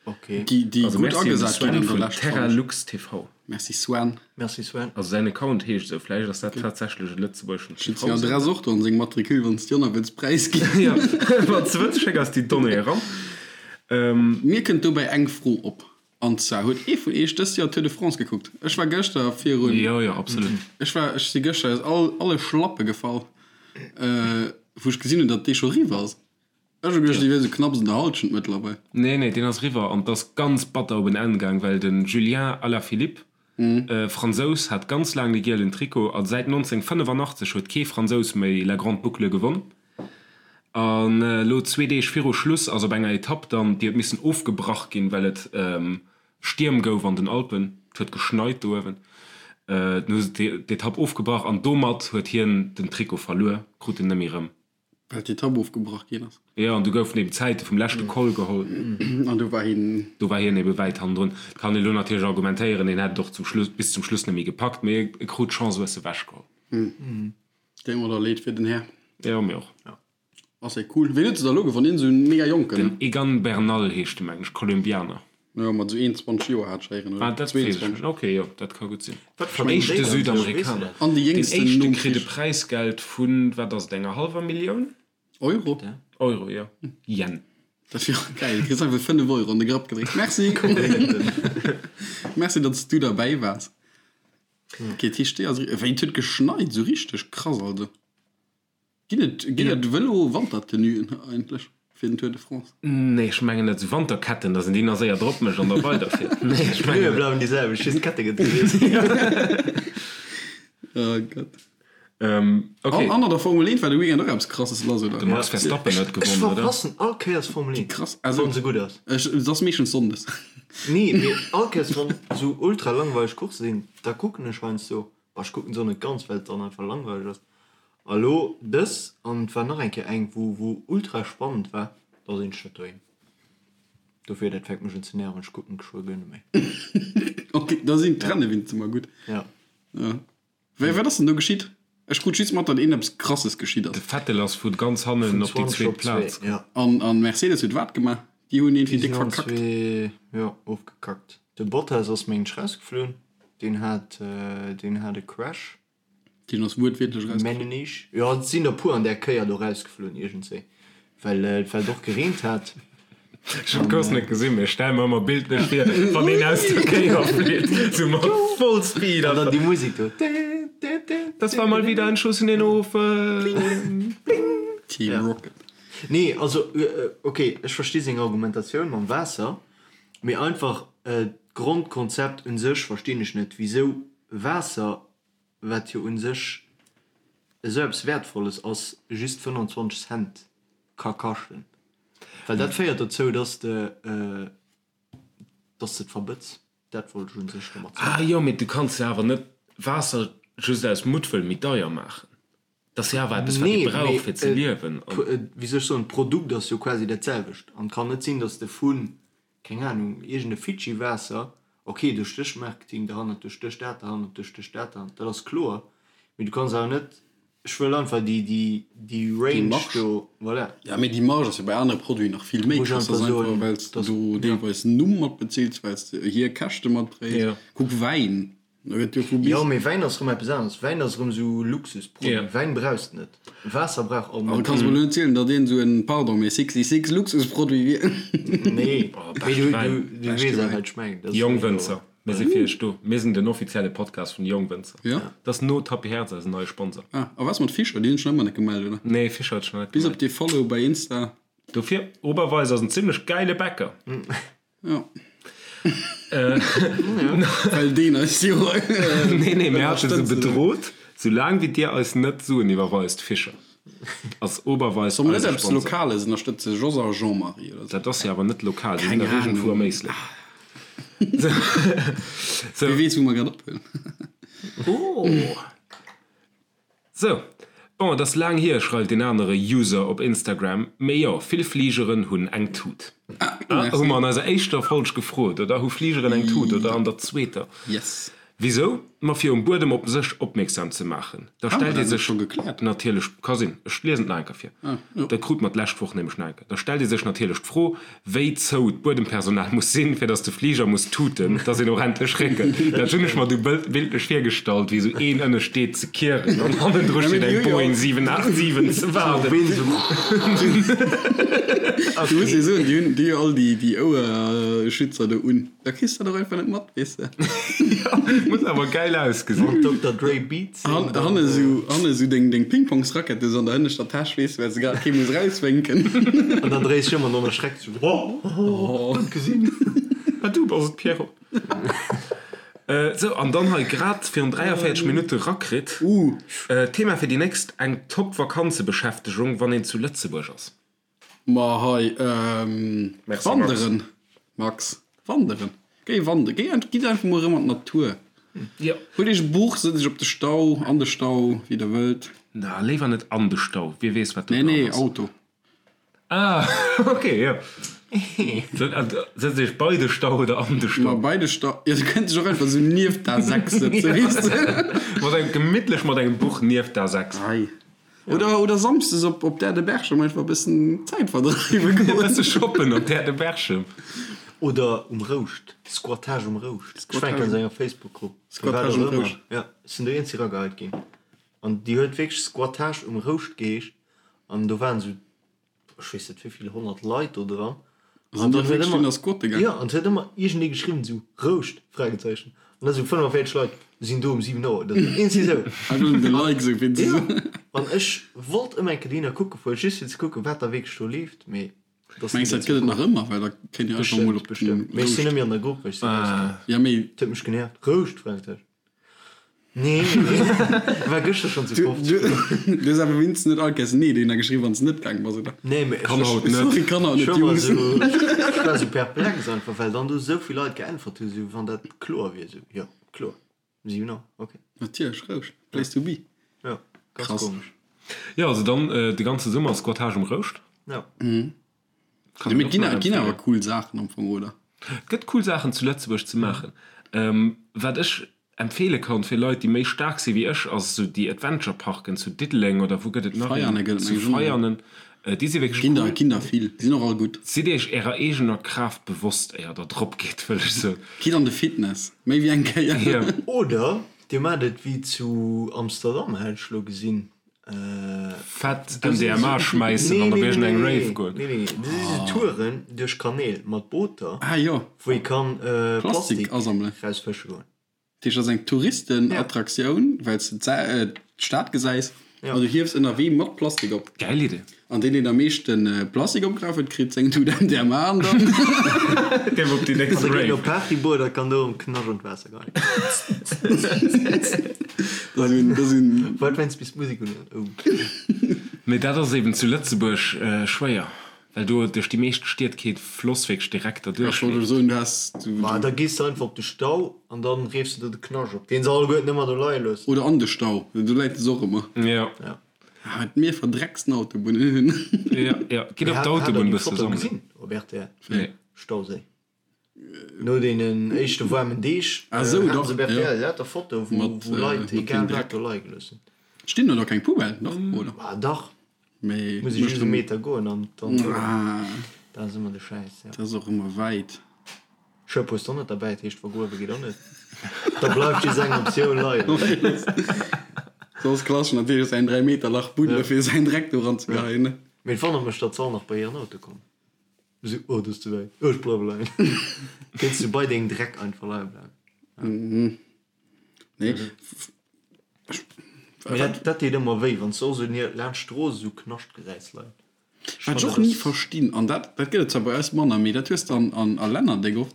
Okay.
Déi, déi
Also
gutt
merci un de
agesat ginn
Sven
an der
vun
Lescht, fannen ech.
Terralux TV.
Merci Sven.
Merci Sven.
Also säin Account heescht esou, vläicht ass dat tatsächlech e lëtzebuergeschen
Ech hunn seng
TV-Sender.
Adress och do an seng Matricule, wann s de déi wëlls präisginn.
Jo, wann s de wëlls, schéck eis déi Donnéeë eran.
Mir kënnt dobäi eng Fro op, an zwar, Huet ee vun iech dëst Joer Tour de France gekuckt? Ech war gëschter virun.
Jo, jo, absolut.
Ech war, ech si gëschter aus all, alle Schlappe gefall, wou ech gesinn hunn, datt dee scho eriwwer ass. Ech hu geduecht, déi wier sou knapps an der Halschent mëttlerweil.
Nee, nee, deen ass eriwwer an 't ass ganz batter op en Enn gaang, well de Julien Alaphilippe, Fransous, hat ganz laang de gielen Trikot a säit 1985 huet kee Fransous méi La Grande Boucle gewonn. An elo zwee Deeg viru Schluss ass op enger Etapp dann, déi huet missen ofgebrach ginn, well et Stierm gouf an den Alpen, et huet geschneit do uewen, dunn hu se d'Etapp ofgebrach an domat huet hien den Trikot verluer, krut en net méi erëm.
Well d'Etapp ofgebrach ginn ass.
Jo, an du goufen eben d'Zäite vum leschte Col geholl.
An do war hien.
Do war hien ebe wäit hannendrun. Et kann een elo natierlech argumentéieren, hien hätt et och zum Schluss, bis zum Schluss net méi gepackt, mee e krut d'Chance hues ewechgeholl.
Deet mer da leed fir den Här.
Jo, mir och.
Ass e cool. Ween huet se da elo gewonn? Een esou en mega jonken?
Den Egan Bernal heescht de, mengen ech, Kolumbianer.
Jo, mat esou 21 Joer hat ech héieren, oder
Ah, dat weess ech
22.
net. Ok, jo, dat ka gutt sinn.
Wat verdéngt
Éischte
déi dann sech? Weess du
Südamerikaner.
dat?
An déi
Deen
jéngsten
éischte
nom
kritt e
Krich.
Präisgeld vun, wat ass et, enger hallwer Millioun?
Euro?
Euro, jo. Yen.
Dat wier och geil. Du kriss einfach 5 Euro an de Grapp gedréckt. Merci! Merci, datt s du derbäi waars. Ok, dat heescht, déi ass. Wéi, et huet geschneit, esou richteg krass, also. Ginn et ginn et Vëlo-Wantertenuen eigentlech fir den Tour de France?
Nee, ech mengen net. Esou Wanterketten, dass een déi nach séier drop mécht an da weiderfiert. Nee, ech mengen
D'Pneue
net.
bleiwen déi selwecht, just d'Kette gëtt gewiesselt.
Oh Gott.
Ok.
An an der Formel 1 war de Weekend och eppes Krasses lass, oder?
De Max Verstappen huet
Ech
gewonnen, oder?
verpassen all Kéiers Formel 1,
Krass, also
wann se gutt ass.
ech, et ass meeschtens sonndes.
Nee, mee all Kéiers wann esou ultra langweileg Coursse sinn, da kucken ech heiansdo. Bah, ech kucken se och net ganz, well et dann einfach langweileg ass. A lo dës, an et war nach eng Kéier eng, wou wou ultra spannend war, da sinn ech net doheem. Dofir, dat fänkt mech un ze nerven, ech kucken geschwë guer net méi.
Ok, da sinn d'Renne winst ëmmer gutt.
Ja.
Ja. Wéi, wat ass denn do geschitt? Ech krut just mat, datt een eppes Krasses geschitt ass.
De Vettel ass vu ganz hannen
Vun
op déi
20
zweet
op 2,
Plaz.
ja.
An, an Mercedes huet wat gemaach? Déi hunn
Déi
iergendwéi déck
sinn allen
verkackt.
zwee, jo, ofgekackt. De Bottas ass mengen ech rausgeflunn, deen hat, deen hat e Crash.
Deen ass wuertwiertlech rausgeflunn.
Mengen ech. Jo, et sinn der puer an där Kéier do rausgeflunn iergendswéi, well et well et och gereent hat.
Ech hunn d'Course net gesinn, mee ech stelle mer ëmmer bildlech vir, wann een aus der Kéier flitt, sou mat voll Speed.
An dann déi Musek do.
Das war mal wieder ein Schuss in den Ofen.
Team Rocket.
Nee, also ok, ech versti seng Argumentatioun mam Waasser, mee einfach d'Grondkonzept un sech verstinn ech net, wisou Waasser wat jo un sech esou eppes Wäertvolles ass, just 25 Cent ka kaschten. Well dat féiert dozou, dass de, dass de et verbëtz. Dat wollt ech un sech domat soen.
Ah jo, mee du kanns jo awer net Waasser just aus Muttwëll méi deier maachen. Dat ass jo awer eppes, wat ee
Nee,
brauch,
mee
fir ze liewen.
wéi soll ech soen, d'Produkt ass jo quasi dat selwecht. An et kann net sinn, dass de vu keng Ahnung, iergend e Fidschi-Waasser, ok, do stécht Marketing derhannert, do stécht dat derhannert, do stécht dat derhannert, dat ass kloer, mee du kanns awer net, ech wëll einfach déi, déi, déi
Déi
Range
Marge.
do, voilà.
Ja, mee déi Marge ass jo bei anere Produiten nach vill méi
Muss ech
krass. Dat
einfach
ass einfach,
soen,
well s de
dass,
do
ja.
deelweis den Numm mat bezils, well s de hir Käschte matdréis.
Ja.
Kuck Wäin, do gëtt jo vu bis.
Jo, mee Wäin ass erëm eppes aneres. Wäin ass erëm esou Luxusproduit.
Ja.
Wäin brauchs de net. Waasser brauch all
Also
Mënsch.
kanns mer elo net zielen, datt een esou en, pardon, mee 66 Luxusproduit wier.
Nee,
Oh,
mee
beschte
du, du,
Wäin.
du
Beschte
weess awer,
Wäin.
wat ech mengen. Dat ass
Jong
jo.
Wënzer, mir si fir iech do. Mir sinn den offizielle Podcast vun de Jongwënzer.
Ja.
Dat ass no Tappi Herz eisen neie Sponsor.
Ah, a was mat Fischer? Déi hunn sech nach ëmmer net gemellt, oder?
Nee, Fischer huet sech nach net
Bis op
gemellt.
dee Follow bei Insta.
Dofir, Oberweis ass en zimlech gäile Bäcker.
Ja. Well deen eis jo
Nee, nee, mir hate se
ënnerstëtzen.
bedrot, soulaang wéi dir eis net Suen iwwerweist, Fischer ass Oberweis
Soll mer net
eise
eppes
Sponsor.
Lokales ënnerstëtzen? Jos a Jean-Marie oder sou?
Dat ass jo awer net lokal, déi sinn
Keng
dach iergendwou am
Ahnung.
Éislek. Sou.
Wie weess, wou mer grad ophuelen.
Oh. Sou, bon, et ass laang hier, schreift een anere User op Instagram, mee jo, vill Fligeren hunn eng Tut. Ah, hu mer an eiser éischter Folg gefrot, oder? Hu Fligeren eng Tut, oder an der zweeter?
Yes.
Wisou? Ma fir um Buedem op sech opmierksam ze maachen. Da
Haben
stellt
mer
ee
dat net
sech
scho gekläert?
natierlech, ka sinn, ech liesen et nach eng Kéier vir,
Ah, jo.
dat krute mer d'lescht Woch nämlech nach eng Kéier, da stellt ee sech natierlech d'Fro, wéi zou d'Buedempersonal muss sinn, fir datt de Fliger muss tuten, datt een och endlech réckelt. Dat hunn ech mer du bildlech virgestallt, wéi esou een ënne steet ze kieren an hannendru steet eng Boeing 787 ze waarden.
Du muss jo soen, déi hunn déi hu all déi déi Ouerschützer do un. Da kriss de dat och einfach net mat, weess de.
Muss awer gäil ausgesinn.
Wann Dokter Dre Beats sinn,
Han,
dann.
hanne sou, hanne sou deng, deng Pingpongsrackette sou an der hënneschter Täsch, weess de, well se grad kee muss rauswénken.
An dann dréis ech ëm an dann erschreckt sou, Oh, net gesinn.
Ah, du bass et, Pierrot. Sou, an dann hei grad virun 43 Minutte rakritt.
Uh.
Thema fir déi nächst, eng top Vakanzebeschäftegung, wann een zu Lëtzebuerg ass.
Ma hei,
Merci, Max.
wanderen, Max, wanderen. Géi wanderen, géi ent, gitt einfach mol erëm an d'Natur.
Jo.
Huelt iech e Buch, sëtzt iech op de Stau, an de Stau, wéi der wëllt.
Na, léiwer net an de Stau, wie weess, wat do
Nee,
dran
nee,
ass.
Auto.
Ah, ok, jo. Sëtzt iech bei de Stau oder an de
Ma
Stau?
bei de Stau, jo, du kënns dech och einfach esou nieft d'A6 sëtzen, weess de.
Mat engem, gemittlech mat engem Buch nieft d'A6.
Hei. Oder, oder samsdes op, op d'Äerdeberchem einfach e bëssen Zäit verdreiwe
E
goen.
bësse shoppen op d'Äerdeberchem.
Oder um Rouscht, Squattage um Rouscht. Ech war eng Kéier an esou enger Facebook-Grupp,
Squattage um Rouscht.
Jo, ech sinn do eenzeg erageheit ginn. An déi huet wierklech Squattage um Rouscht geheescht. An do waren esou ech weess net wéivill 100 Leit do dran.
An dann huet ëmmer squatte gaang.
Jo, an et huet ëmmer iergendee geschriwwen esou Rouscht? Fragezeichen. An da sou 45 Leit sinn do um 7 Auer oder sou. Iergendwéi esou.
Einfach nëmmen de Like esou fir ze
Jo,
soen.
an ech wollt ëmmer eng Kéier dohinner kucke fueren, just fir ze kucken, wat da wierklech do leeft, mee et ass ni
Mengs dat
dozou
gëtt et nach
komm.
ëmmer, well da kéint Dir einfach mol
Bestëmmt,
op den
bestëmmt. Mee ech sinn
Rouscht.
net méi an der Grupp, well ech sinn rausgaangen.
Ja, mee.
Et huet mech genervt. Rouscht? Fragezeichen. Nee, war gëschter schon zu
Du, du, du hues awer wéinstens net all Kéiers Nee dohinner geschriwwen, wann s de net gaang bass, oder?
Nee, mee
Kann haut net.
Sorry, kann haut net, Jungs.
Ech war sou perplex einfach, well dann do sou vill Leit geäntwert hunn, sou wann dat kloer wier. Sou, jo, kloer, 7 Auer, ok.
Natierlech, Rouscht, place to be.
Jo, ganz
Krass.
komesch.
Jo, also dann de ganze Summer Squattage um Rouscht.
Jo.
Kann
Mee
een
et ginn
och nach
et ginn awer
empfehlen.
cool Saachen am Fong, oder?
Et gëtt cool Saachen zu Lëtzebuerg ze maachen. Wat ech. empfeele kann fir Leit, déi méi staark si wéi ech, ass esou déi Adventure Parken zu Diddeleng oder wou gëtt et nach een?
Veianen gëtt et
Zu
meng ech och.
Veianen. Déi si wierklech
Ginn der,
cool.
ginn der vill. Déi sinn och all gutt.
Sidd iech ärer eegener Kraaft bewosst, éier der drop gitt, wëll ech soen.
Gitt an de Fitness, méi wéi eng Kéier.
Jo.
Oder dir maacht et wéi zu Amsterdam, hat ech elo gesinn.
Fett MDMA schmäissen an op iergend eng Rave goen.
Nee, nee, nee, do si sou Touren duerch Kanäl mat Booter,
Ah jo.
wou ee kann
Plastik
Plastik
asammelen.
rausfësche goen.
Dat heescht, dat ass eng Touristenattraktioun, well s de d'Stad gesäis an du hiefs ënnerwee mat Plastik op.
Gäil Idee.
An deen, deen am meeschte Plastik opgeraf huet, kritt seng Tut MDMA an dann.
Dierf op déi nächst
An da geet
Rave.
en op Partyboot a kann do um Knascht an d'Waasser geheien.
Dat ass un.
Wat wéinst bis d'Musek un huet? Oh.
Mee dat ass eben zu Lëtzebuerg schwéier, well do duerch déi meescht Stied kee Floss wierklech direkt derduerch
Ech wollt
leeft.
elo soen, du has.
Ma da gees de einfach op de Stau an dann reefs de do de Knascht op, deen se alleguerten ëmmer do leie loossen.
Oder an de Stau, do läit es och ëmmer.
Jo.
Ja.
Ah, wat mir verdrecksten Autobunnen hunn.
Jo, jo. Gitt op
Hat
d'Autobunn
der déi
bësse
Foto
sammelen.
gesinn op rtl?
Nee.
Stauséi. No deenen éischte waarmen Deeg
Ah, sou,
haten
dach,
se op rtl
ja.
lauter Fotoe wou
Mat,
wou
äh,
Leit
mat dem
egal wat
Dreck.
do leie gelooss hunn.
Stinn do da keng Poubellen? Dach, oder?
Ah dach,
Mee
muss ech
mécht
just e
dem.
Meter goen an dann
Ah,
dat ass ëmmer de Schäiss, ja.
dat ass och ëmmer wäit.
Schëpp hues d'och net derbäi, dat heescht vergruewe geet och net. Da bleift just eng Optioun leien.
Soss klaschen natierlech säin 3 Meter Lach buddele fir säin Dreck do ranzegeheien, ne?
Mee et wonnert mech, datt se all nach bei hiren Auto kommen. Esou, oh, dat ass ze wäit, ech bleiwe leien. Kéints du bei dengem Dreck einfach leie bleiwen.
Nee.
Mee dat, dat deet ëmmer wéi, wann s du och esou laanscht d'Strooss esou Knascht gesäis leien.
Wat ech och ni verstinn, an dat dat gëtt et zwar bei eis manner, mee dat hues de an an a Länner déck oft,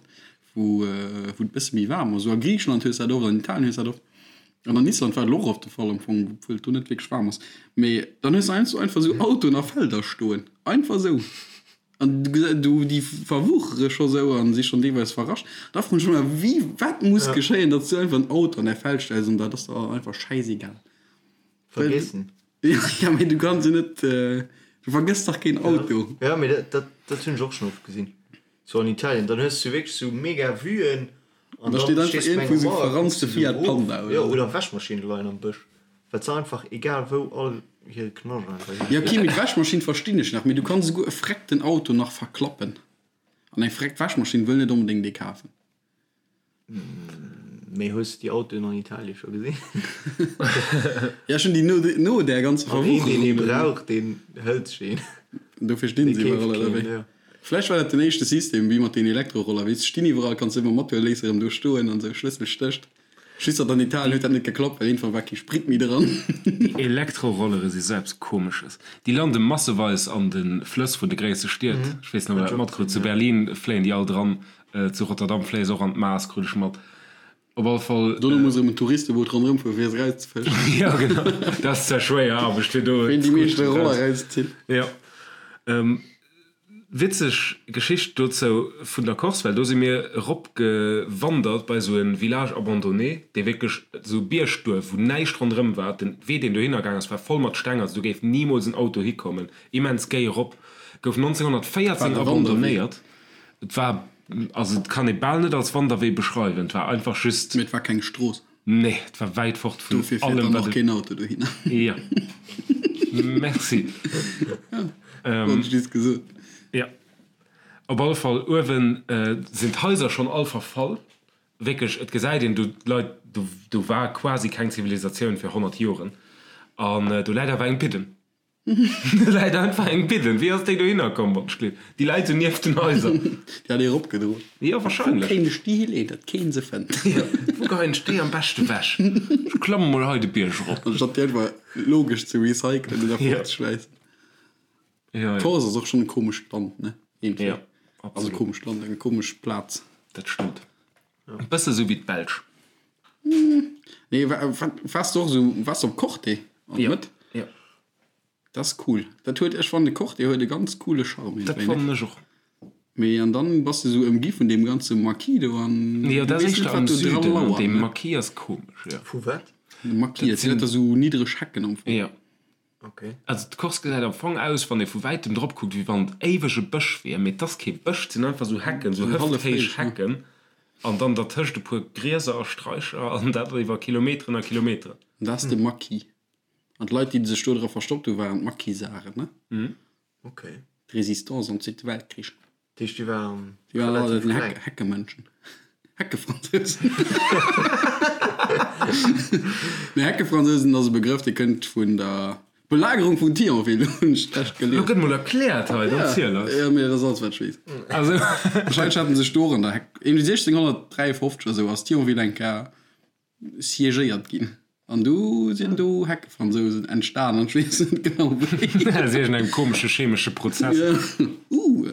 wou wou et bësse méi waarm ass, esou a Griicheland hues de dat oft, an Italien hues de dat oft, an an Island war et elo och oft de Fall am Fong, obwuel et do net wierklech waarm ass, mee dann hues de heiansdo einfach esou Autoen a Felder stoen, einfach esou, an du gesä du déi verwuchere scho sou an si schonn deelweis verrascht. Da froen ech mech ëmmer, wéi wat muss geschéien, datt s du einfach en Auto an däi Feld stells an dat ass der einfach schäisegal.
Vergessen.
Ja, mee du kanns jo net, du vergëss dach keen Auto.
Ja, mee dat, dat, dat hunn ech och schonn oft gesinn. Sou an Italien, dann hues du wierklech sou mega Vuen an
Da
dann
steet einfach
stees du bei
iergendwou
enger
sou
Mauer, kucks
verranzte
du sou
Fiat
erof.
Panda oder
Jo,
sou.
oder Wäschmaschinne leien am Bësch, well se einfach egal wou all hire Knascht einfach hin.
Ja, okay, mee d'Wäschmaschinn verstinn ech nach, mee du kanns esouguer e freckten Auto nach verklappen. An eng freckt Wäschmaschinn wëll net onbedéngt ee kafen.
Mee hues de déi Autoen an Italien scho gesinn?
Ja, ech hunn déi no, no där ganzer
An een, deen ee
Verwucherung.
brauch, deen hëlt sech een.
Dofir stinn
Dee
se
keeft
iwwerall, oder
keen,
wéi?
jo.
Vläicht war dat den éischte System, wéi mat den Elektroroller, weess, stinn iwwerall, kanns de ëmmer mathuelen, léiss erëm do stoen an esou, Schlëssel stécht. Just datt an Italien huet dat net geklappt, well iergendwann war kee Sprit méi dran.
Déi Elektrorollere si sou eppes Komesches. Déi lande masseweis an de Flëss vun de gréisse Stied. Ech weess net, ob der dat matkrut. Zu Berlin fléien déi all dran, zu Rotterdam fléie se och an d'Maas, krut ech mat. Op alle Fall.
Dono muss erëm en Touristeboot ronderëm fueren, fir se erauszefëschen.
Jo, genau. Dat ass zwar schwéier Aarbecht, fir do.
Ween déi meeschte Roller erauszitt.
Jo. Witzeg Geschicht dozou vun der Corse, well do si mir erop gewandert bei esou e Village abandonné, dee wierklech esou e Biergduerf, wou näischt ronderëm war. Den Wee, deen dohinner gaang ass, war voll mat Steng, also do géif nimools en Auto hikommen. Immens géi erop. Gouf 1914
War e Wanderwee?
abandonnéiert. Et war, also et kann ee bal net als Wanderwee beschreiwen, et war einfach just.
Mee et war keng Strooss.
Nee, et war wäit fort vun
Dofir fiert
allem,
dann
wat
och
et.
keen Auto dohinner.
Jo. Merci.
Wollt ech just gesot.
Jo. Op alle Fall, uewen sinn d'Haiser schonn all verfall. Wierklech, et gesäit een do d'Leit, do, do war quasi keng Zivilisatioun fir 100 Joren. An do läit awer eng Bidden. Do läit einfach eng Bidden. Wéi ass déi dohinner komm, wann ech gleef? Déi läit sou nieft den Haiser.
Déi hat ee eropgedroen.
Jo,
Wou
wahrscheinlech.
kéint ech déi hileeën, datt keen se fënnt?
Jo, wou geheien ech déi am beschte wech? Ech klamme mol hei de Bierg erop.
Anstatt déi einfach logesch ze recyclen oder
Jo.
fortzeschmeissen.
Jo, jo.
Corse ass och schonn e komescht Land, ne? Iergendwéi.
Jo,
Also
absolut.
komescht Land, eng komesch Plaz.
Dat stëmmt. E bësse sou wéi d'Belsch.
Nee, wa, wa, waars du och esou, waars du op Corte an
Jo,
Mëtt?
jo.
Dat ass cool. Dat huet, ech fannen de Corte huet e ganz coole Charme
Dat
iergendwéi, ne?
fannen ech och.
Mee an dann bass de esou ëmgi vun deem ganze Maquis do an
Jo,
du
dat ass
weess net,
éischter am
wat do dra
Süden an
lauert,
dee
ne?
Maquis ass komesch, jo.
Vu wat?
De Maquis, dat sinn
sinn-
lauter esou niddreg Hecken am Fong.
Jo.
Okay.
Also d'Corse gesäit am Fong aus, wann ee vu wäitem drop kuckt, wéi wann et éiweg e Bësch wier, mee et ass kee Bësch, et sinn einfach esou Hecken, esou
Hallef
hëfthéich
héich, ne?
Hecken. An dann dertëscht e puer Grieser a Straicher an dat iwwer Kilometeren a Kilometeren.
An dat ass de Maquis. An d'Leit, déi sech do dra verstoppt hu waren d'Maquisaren, ne?
Ok.
D'Résistance am Zweete Weltkrich.
Dat heescht, déi waren
Déi waren all
relativ
den
kleng.
Heck Heckemënschen. Heckefransousen. Nee, Heckefransousen ass e Begrëff, dee kënnt vun der Belagerung vun Thionville, hunn ech d'lescht
Lo
gelies.
gëtt mol erkläert hei, dann ziel eis.
Ja, mee dat ass alles, wat ech weess.
Also.
Wahrscheinlech haten sech do och an der Heck, iergendwéi 1653 oder sou ass Thionville eng Kéier siégéiert ginn. An du sinn do Heckefransousen entstan an ech weess net genau wéi.
Aus iergendengem komesche chemesche Prozess.
Ja. Uh.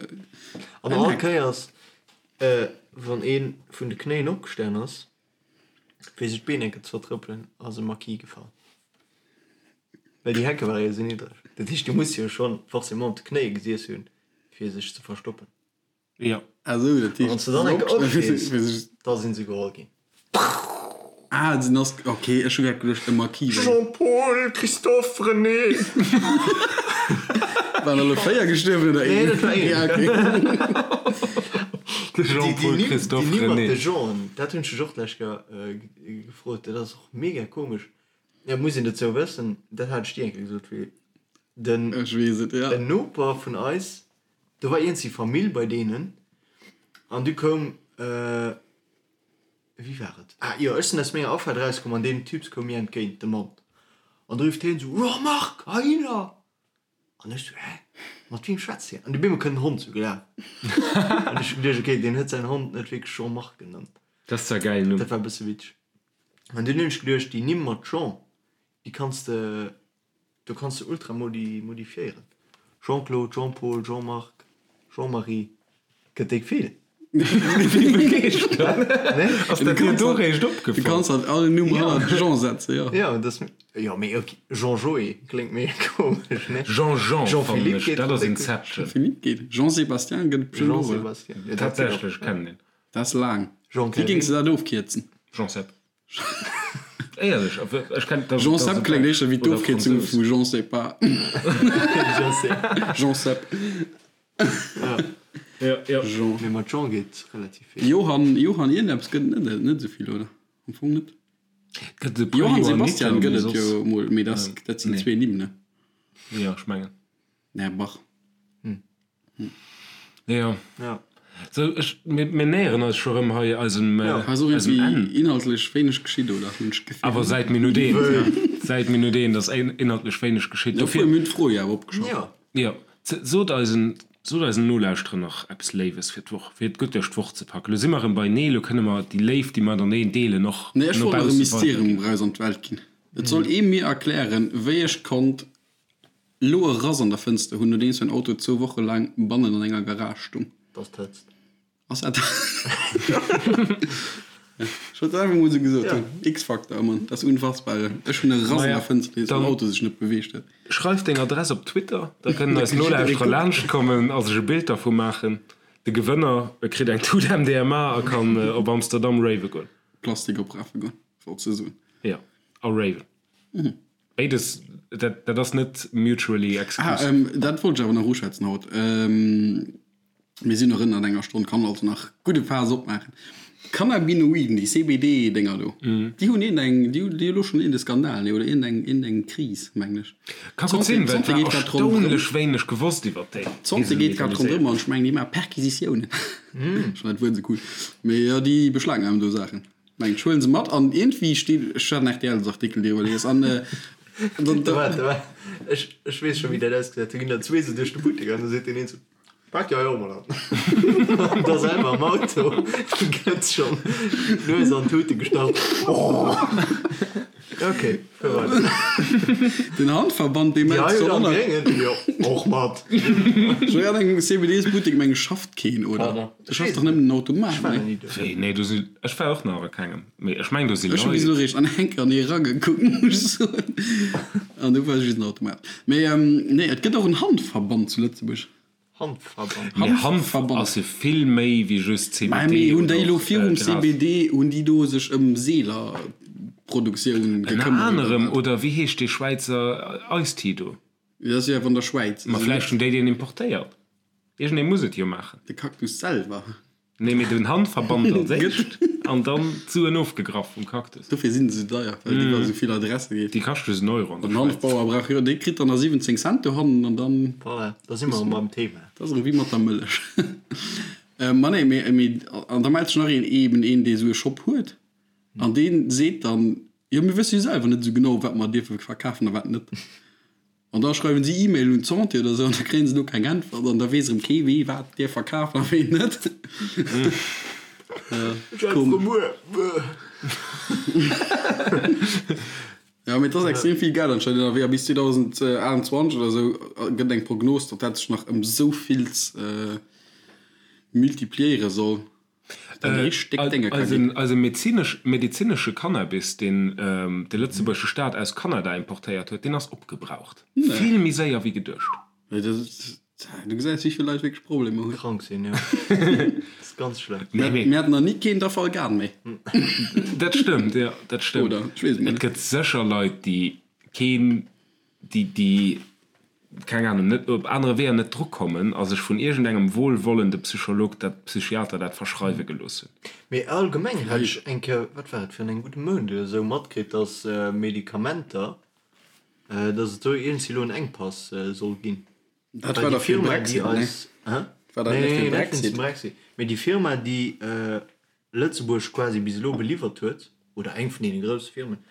An all Kéiers, wann ee vun de Knéien opgestan ass, fir sech d'Been enke ze vertrëppelen, ass e Maquis gefall. Well déi Hecke ware jo esou niddreg. Dat heescht, du muss jo schonn forcément op de Knéie gesiess hunn, fir sech ze verstoppen.
Jo.
Ah sou, dat
A wann s de dann enke opstees, da sinn se geholl ginn.
Ah, den ass, ok, ech hu grad geduecht, e Maquis wär.
Jean-Paul, Christophe, René.
Waren alle 4 gestuerwen oder een?
Nee, dat war een.
Ja, ok.
De Jean-Paul, Christophe,
Déi Nimm mat
René.
de Jean'en, dat hunn ech dech och d'lescht Kéier gefrot, dat ass och mega komesch. Ja, muss een dozou wëssen, dat hat ech dir eng Kéier gesot, wéi den
Ech weess et, ja.
en Noper vun eis, do war iergendwéi Famill bei deenen an du koum, Wéi war et? Ah jo, ech sinn aus menger Afaart erauskomm an deen Typs koum mir entgéint, de Mann. An du rifft hien esou, Jean-Marc, heihinner! An ech esou, Hä? Mat wiem schwätzt hien? An du bemol kënnt en Hond esou gelaf. An ech hu geduecht, okay, deen huet säin Hond net wierklech Jean-Marc genannt.
Dat ass zwar e gäilen Numm.
Dat war e bësse witzeg. An dunn hunn ech geduecht, déi Nimm mat Jean, déi kanns de Do kanns de ultra modi modifiéieren. Jean-Claude, Jean-Paul, Jean-Marc, Jean-Marie, gëtt déck vill.
Wéi begeeschtert! Ass dat dir do réischt
Du
opgefall?
kanns halt all Numm hannert Jean setzen, jo.
Jo, dat ass, jo mee ok, Jean-Joé kléngt mega komesch, ne?
Jean-Jean fannen
Jean-Philippe
ech,
geet
dat
och
ass
déck gutt.
Inception.
Jean-Philippe geet. Jean-Sébastien gëtt et bestimmt och, oder?
Jean-Sébastien, jo dat geet och.
Tatsächlech, kennen een.
Dat ass laang. Wéi
Jean-Calvin.
géings de dat ofkierzen?
Jean-Seb. Éierlech, ech kenn dat.
Jean Sepp kléngt éischter wéi d'Ofkierzung vu Jean sais pas. Jean Sepp.
Ja, ja.
Jean.
Mee mat Jean geet relativ vill.
Johann, Johann iergendeppes gëtt et net, net esou vill, oder? Am Fong net.
Gëtt et e puer
Johann
Johanniter,
Sebastian
mee
gëtt et
soss.
jo mol, mee dat, dat sinn zwee Nimm, ne?
Jo, ech mengen.
Nee, Bach.
Jo.
Ja.
Sou, ech, mir, mir näheren eis scho rëm hei eisem,
Ja.
Hei ass och
eisem
iergendwéi
Enn.
inhaltlech wéineg geschitt, oder? Hunn ech d'Gefill.
Awer säit Minutt eent, säit Minutt eent ass inhaltlech wéineg geschitt.
Dofir
Dofir,
mir hunn d'Fro jo awer opgeschafft.
Ja.
jo, sot eisen, sot eisen Nolauschterer nach eppes Léiwes fir d'Woch, fir et gutt duerch d'Woch ze packen. Lo si mer erëm beinee, lo kënne mer déi Léift, déi mer mateneen deelen, och
Nee, ech
no
wollt nach e
bausse
Mysterium
weiderginn.
eraus an d'Welt ginn. Et soll ee mir erklären, wéi ech konnt Lo e Rass an der Fënster hunn, nodeems mäin Auto zwou Woche laang bannen an enger Garage stung.
Dass d'Hëtzt.
Ass dat. Ech wollt et einfach mol sou gesot hunn. X-Factor, Mann, dat ass unfassbar. Ech hunn e Rass an der Fënster, nodeems mäin Auto sech net beweegt huet.
Schreif deng Adress op Twitter, da kënnen eis Nolauschterer laanscht kommen a sech e Bild dervu maachen. De Gewënner kritt eng Tut MDMA a kann op Amsterdam rave goen.
Plastik oprafe goen, wolls de soen.
Jo, a raven. Béides, dat, dat ass net mutually
Ah,
exclusive.
ähm, dat wollt ech awer nach uschwätzen haut. Ähm, mir sinn nach ënnert enger Stonn, kann also nach gudde Faass opmaachen. Cannabinoiden, déi CBD-Dénger do, déi hunn iergendeng, déi hunn déi hu lo schonn iergende Skandal, nee, oder iergendeng, iergendeng Kris, mengen ech.
Ka gutt sinn, well et
D'Santé
war
geet grad ronderëm.
erstaunlech wéineg gewosst iwwer déi.
D'Santé geet grad ronderëm an ech mengen, déi maache Perquisitiounen. Ech fannen dat Wuert esou cool. Mee jo, déi beschlagnamen do Saachen. Mengt ech huelen se mat an iergendwéi steet, ech hat en RTL-Artikel driwwer lies an dann
Da waart, da waart, ech, ech weess scho wéi dat ausgesäit, do ginn der zwee sou duerch de Buttek an da seet deen een sou, Pak déi hei och mol an. An da selwer am Auto gëtt schonn d'Nues an d'Tute gestach. Oh! Ok, fuer weider.
Den Handverband dee
Déi
mellt
hei
sech
huet
och
am
nach.
Gréngen, jo, och mat.
Ech war an engem CBDs-Buttek, meng ech, schafft keen, oder?
Pardon.
Do schafft dach nëmmen den Automat,
Ech war
nee?
nach ni do.
Wéi? Nee, do si, ech war och nach a kengem, mee ech meng do si
Ech hu bis
Leit.
elo réischt an enker an ee ragekuckt, muss ech soen. An do war just den Automat. Mee nee, et gëtt och en Hanfverband zu Lëtzebuerg.
Hanfverband.
Mee Hanf ass jo vill méi wéi just CBD.
Mä mee hunn déi
oder
elo
och
virum
Gras.
CBD, hunn déi do sech ëm Seelerproduktioun
Ënner
gekëmmert oder
anerem,
wat?
oder wéi heescht dee Schwäizer Ice Tea do?
Dat ass jo awer an der Schwäiz.
Ma vläicht hunn déi deen importéiert. Iergendee muss et jo maachen.
De Cactus selwer.
Nee, mee den Handverband als éischt an dann d'Suen ofgegraff vum Cactus.
Dofir sinn se esou deier, well et iwwer esou vill Adresse geet.
Déi kaschte just en Euro
an der Schwäiz. Den Hanfbauer brauch jo, dee kritt dann nach 17 Cent dohannen an dann.
Voilà, da si mer erëm beim Thema.
Dat ass erëm wéi mat der Mëllech. Ma nee, mee, mee an da mellt sech nach een, eben een, dee esou e Shop huet an dee seet dann, jo mir wësse jo selwer net esou genau, wat mer dierfe verkafen a wat net. An da schreiwen si E-Mail un d'Santé oder esou an da kréien se do keng Äntwert an da weess erëm kee wee wat dierf verkafen a ween net. Jo mee et ass extrem vill Geld anscheinend ënnerwee a bis 2028 oder esou gëtt eng Prognos, datt dat sech nach ëm esou vills multipliéiere soll.
Eise medezinesche Cannabis, deen de lëtzebuergesche Staat aus Kanada importéiert huet, deen ass opgebraucht. Vill méi séier wéi geduecht.
Du gesäis, wéi vill Leit wierklech Problemer hunn.
Krank sinn, jo. Dat ass ganz schlëmm.
Mir haten nach ni keen Dafalgan méi.
Dat stëmmt, jo, dat stëmmt. Oder? Ech weess et net. Et gëtt sécher Leit, déi keen, déi, keng Ahnung, net op anere Weeër net drukommen a sech vun iergendengem wohlwollende Psycholog dat, Psychiater dat verschreiwe gelooss hunn.
Mee allgemeng hat ech eng Kéier, wat war et, virun engem gudde Mount oder esou, matkritt, dass Medikamenter, dass et do iergendwéi elo en Enkpass soll ginn.
Dat war da fir de Brexit, ne?
Hä?
War dat net fir de
Nee, net wéinst dem Brexit. Mee déi Firma, déi Lëtzebuerg quasi bis elo beliwwert huet, oder eng vun deene grousse Firmen,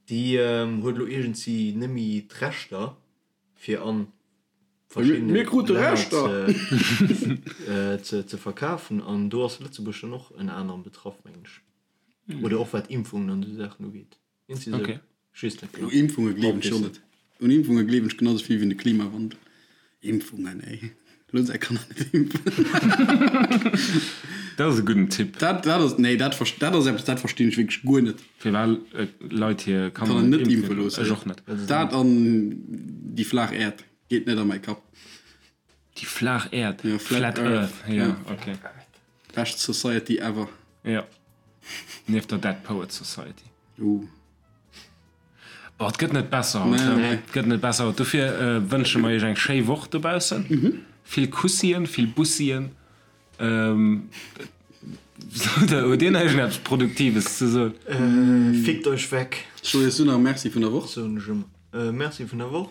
déi huet elo iergendwéi net méi d'Rechter, fir an verschiddene Länner ze verkafen an do ass Lëtzebuerg dann och ënner anerem betraff mengen ech oder och wat Impfungen an esou Saachen ugeet.
Okay.
U Impfunge gleewen ech jo net. Un Impfunge gleewen ech genau sou vill wéi un de Klimawandel. Impfungen ey, looss är Kanner net impfen.
Dat ass e gudden Tipp.
Dat dat ass nee dat dat ass eppes dat verstinn ech wierklech guer net.
Firwat Leit hir Kanner net impfe loossen? Ech och net.
Dat an déi flaach Äerd geet net a mäi Kapp.
Déi flaach Äerd? Ja, Flat Earth. Ja, okay.
Bescht Society ever.
Ja. Nieft der Dead Poets Society.
Uh.
Boah, et gëtt net besser haut. Nee, nee. Et gëtt net besser haut. Dofir äh, wënsche mer iech eng schéi Woch dobaussen. Mhm. Vill Kussien, vill Bussien. Ähm, huet Dir nach iergendeppes Produktives ze soen?
Äh, fickt euch weg.
Ech soen iech du nach Merci vun der Woch.
Soen ech ëmmer. Äh, Merci vun der Woch.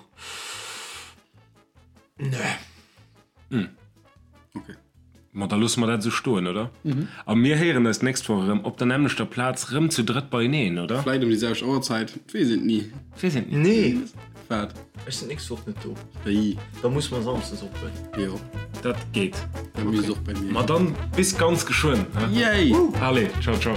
Nee.
Hm.
Okay.
Ma da loosse mer dat esou stoen, oder? Mhm. A mir héieren eis d'nächst Woch erëm op der nämmlechter Plaz, rëm zu drëtt beieneen, oder?
Vläit ëm déi selwecht Auerzäit, et weess een et ni.
Et weess een et ni.
Nee.
Wat?
Ech sinn d'nächst Woch net do.
Wéi?
Da musse mer samsdes ophuelen.
Jo.
Dat geet.
Dat misst och bei mir.
Ma dann bis ganz geschwënn,
he? Yay!
Allez, ciao, ciao.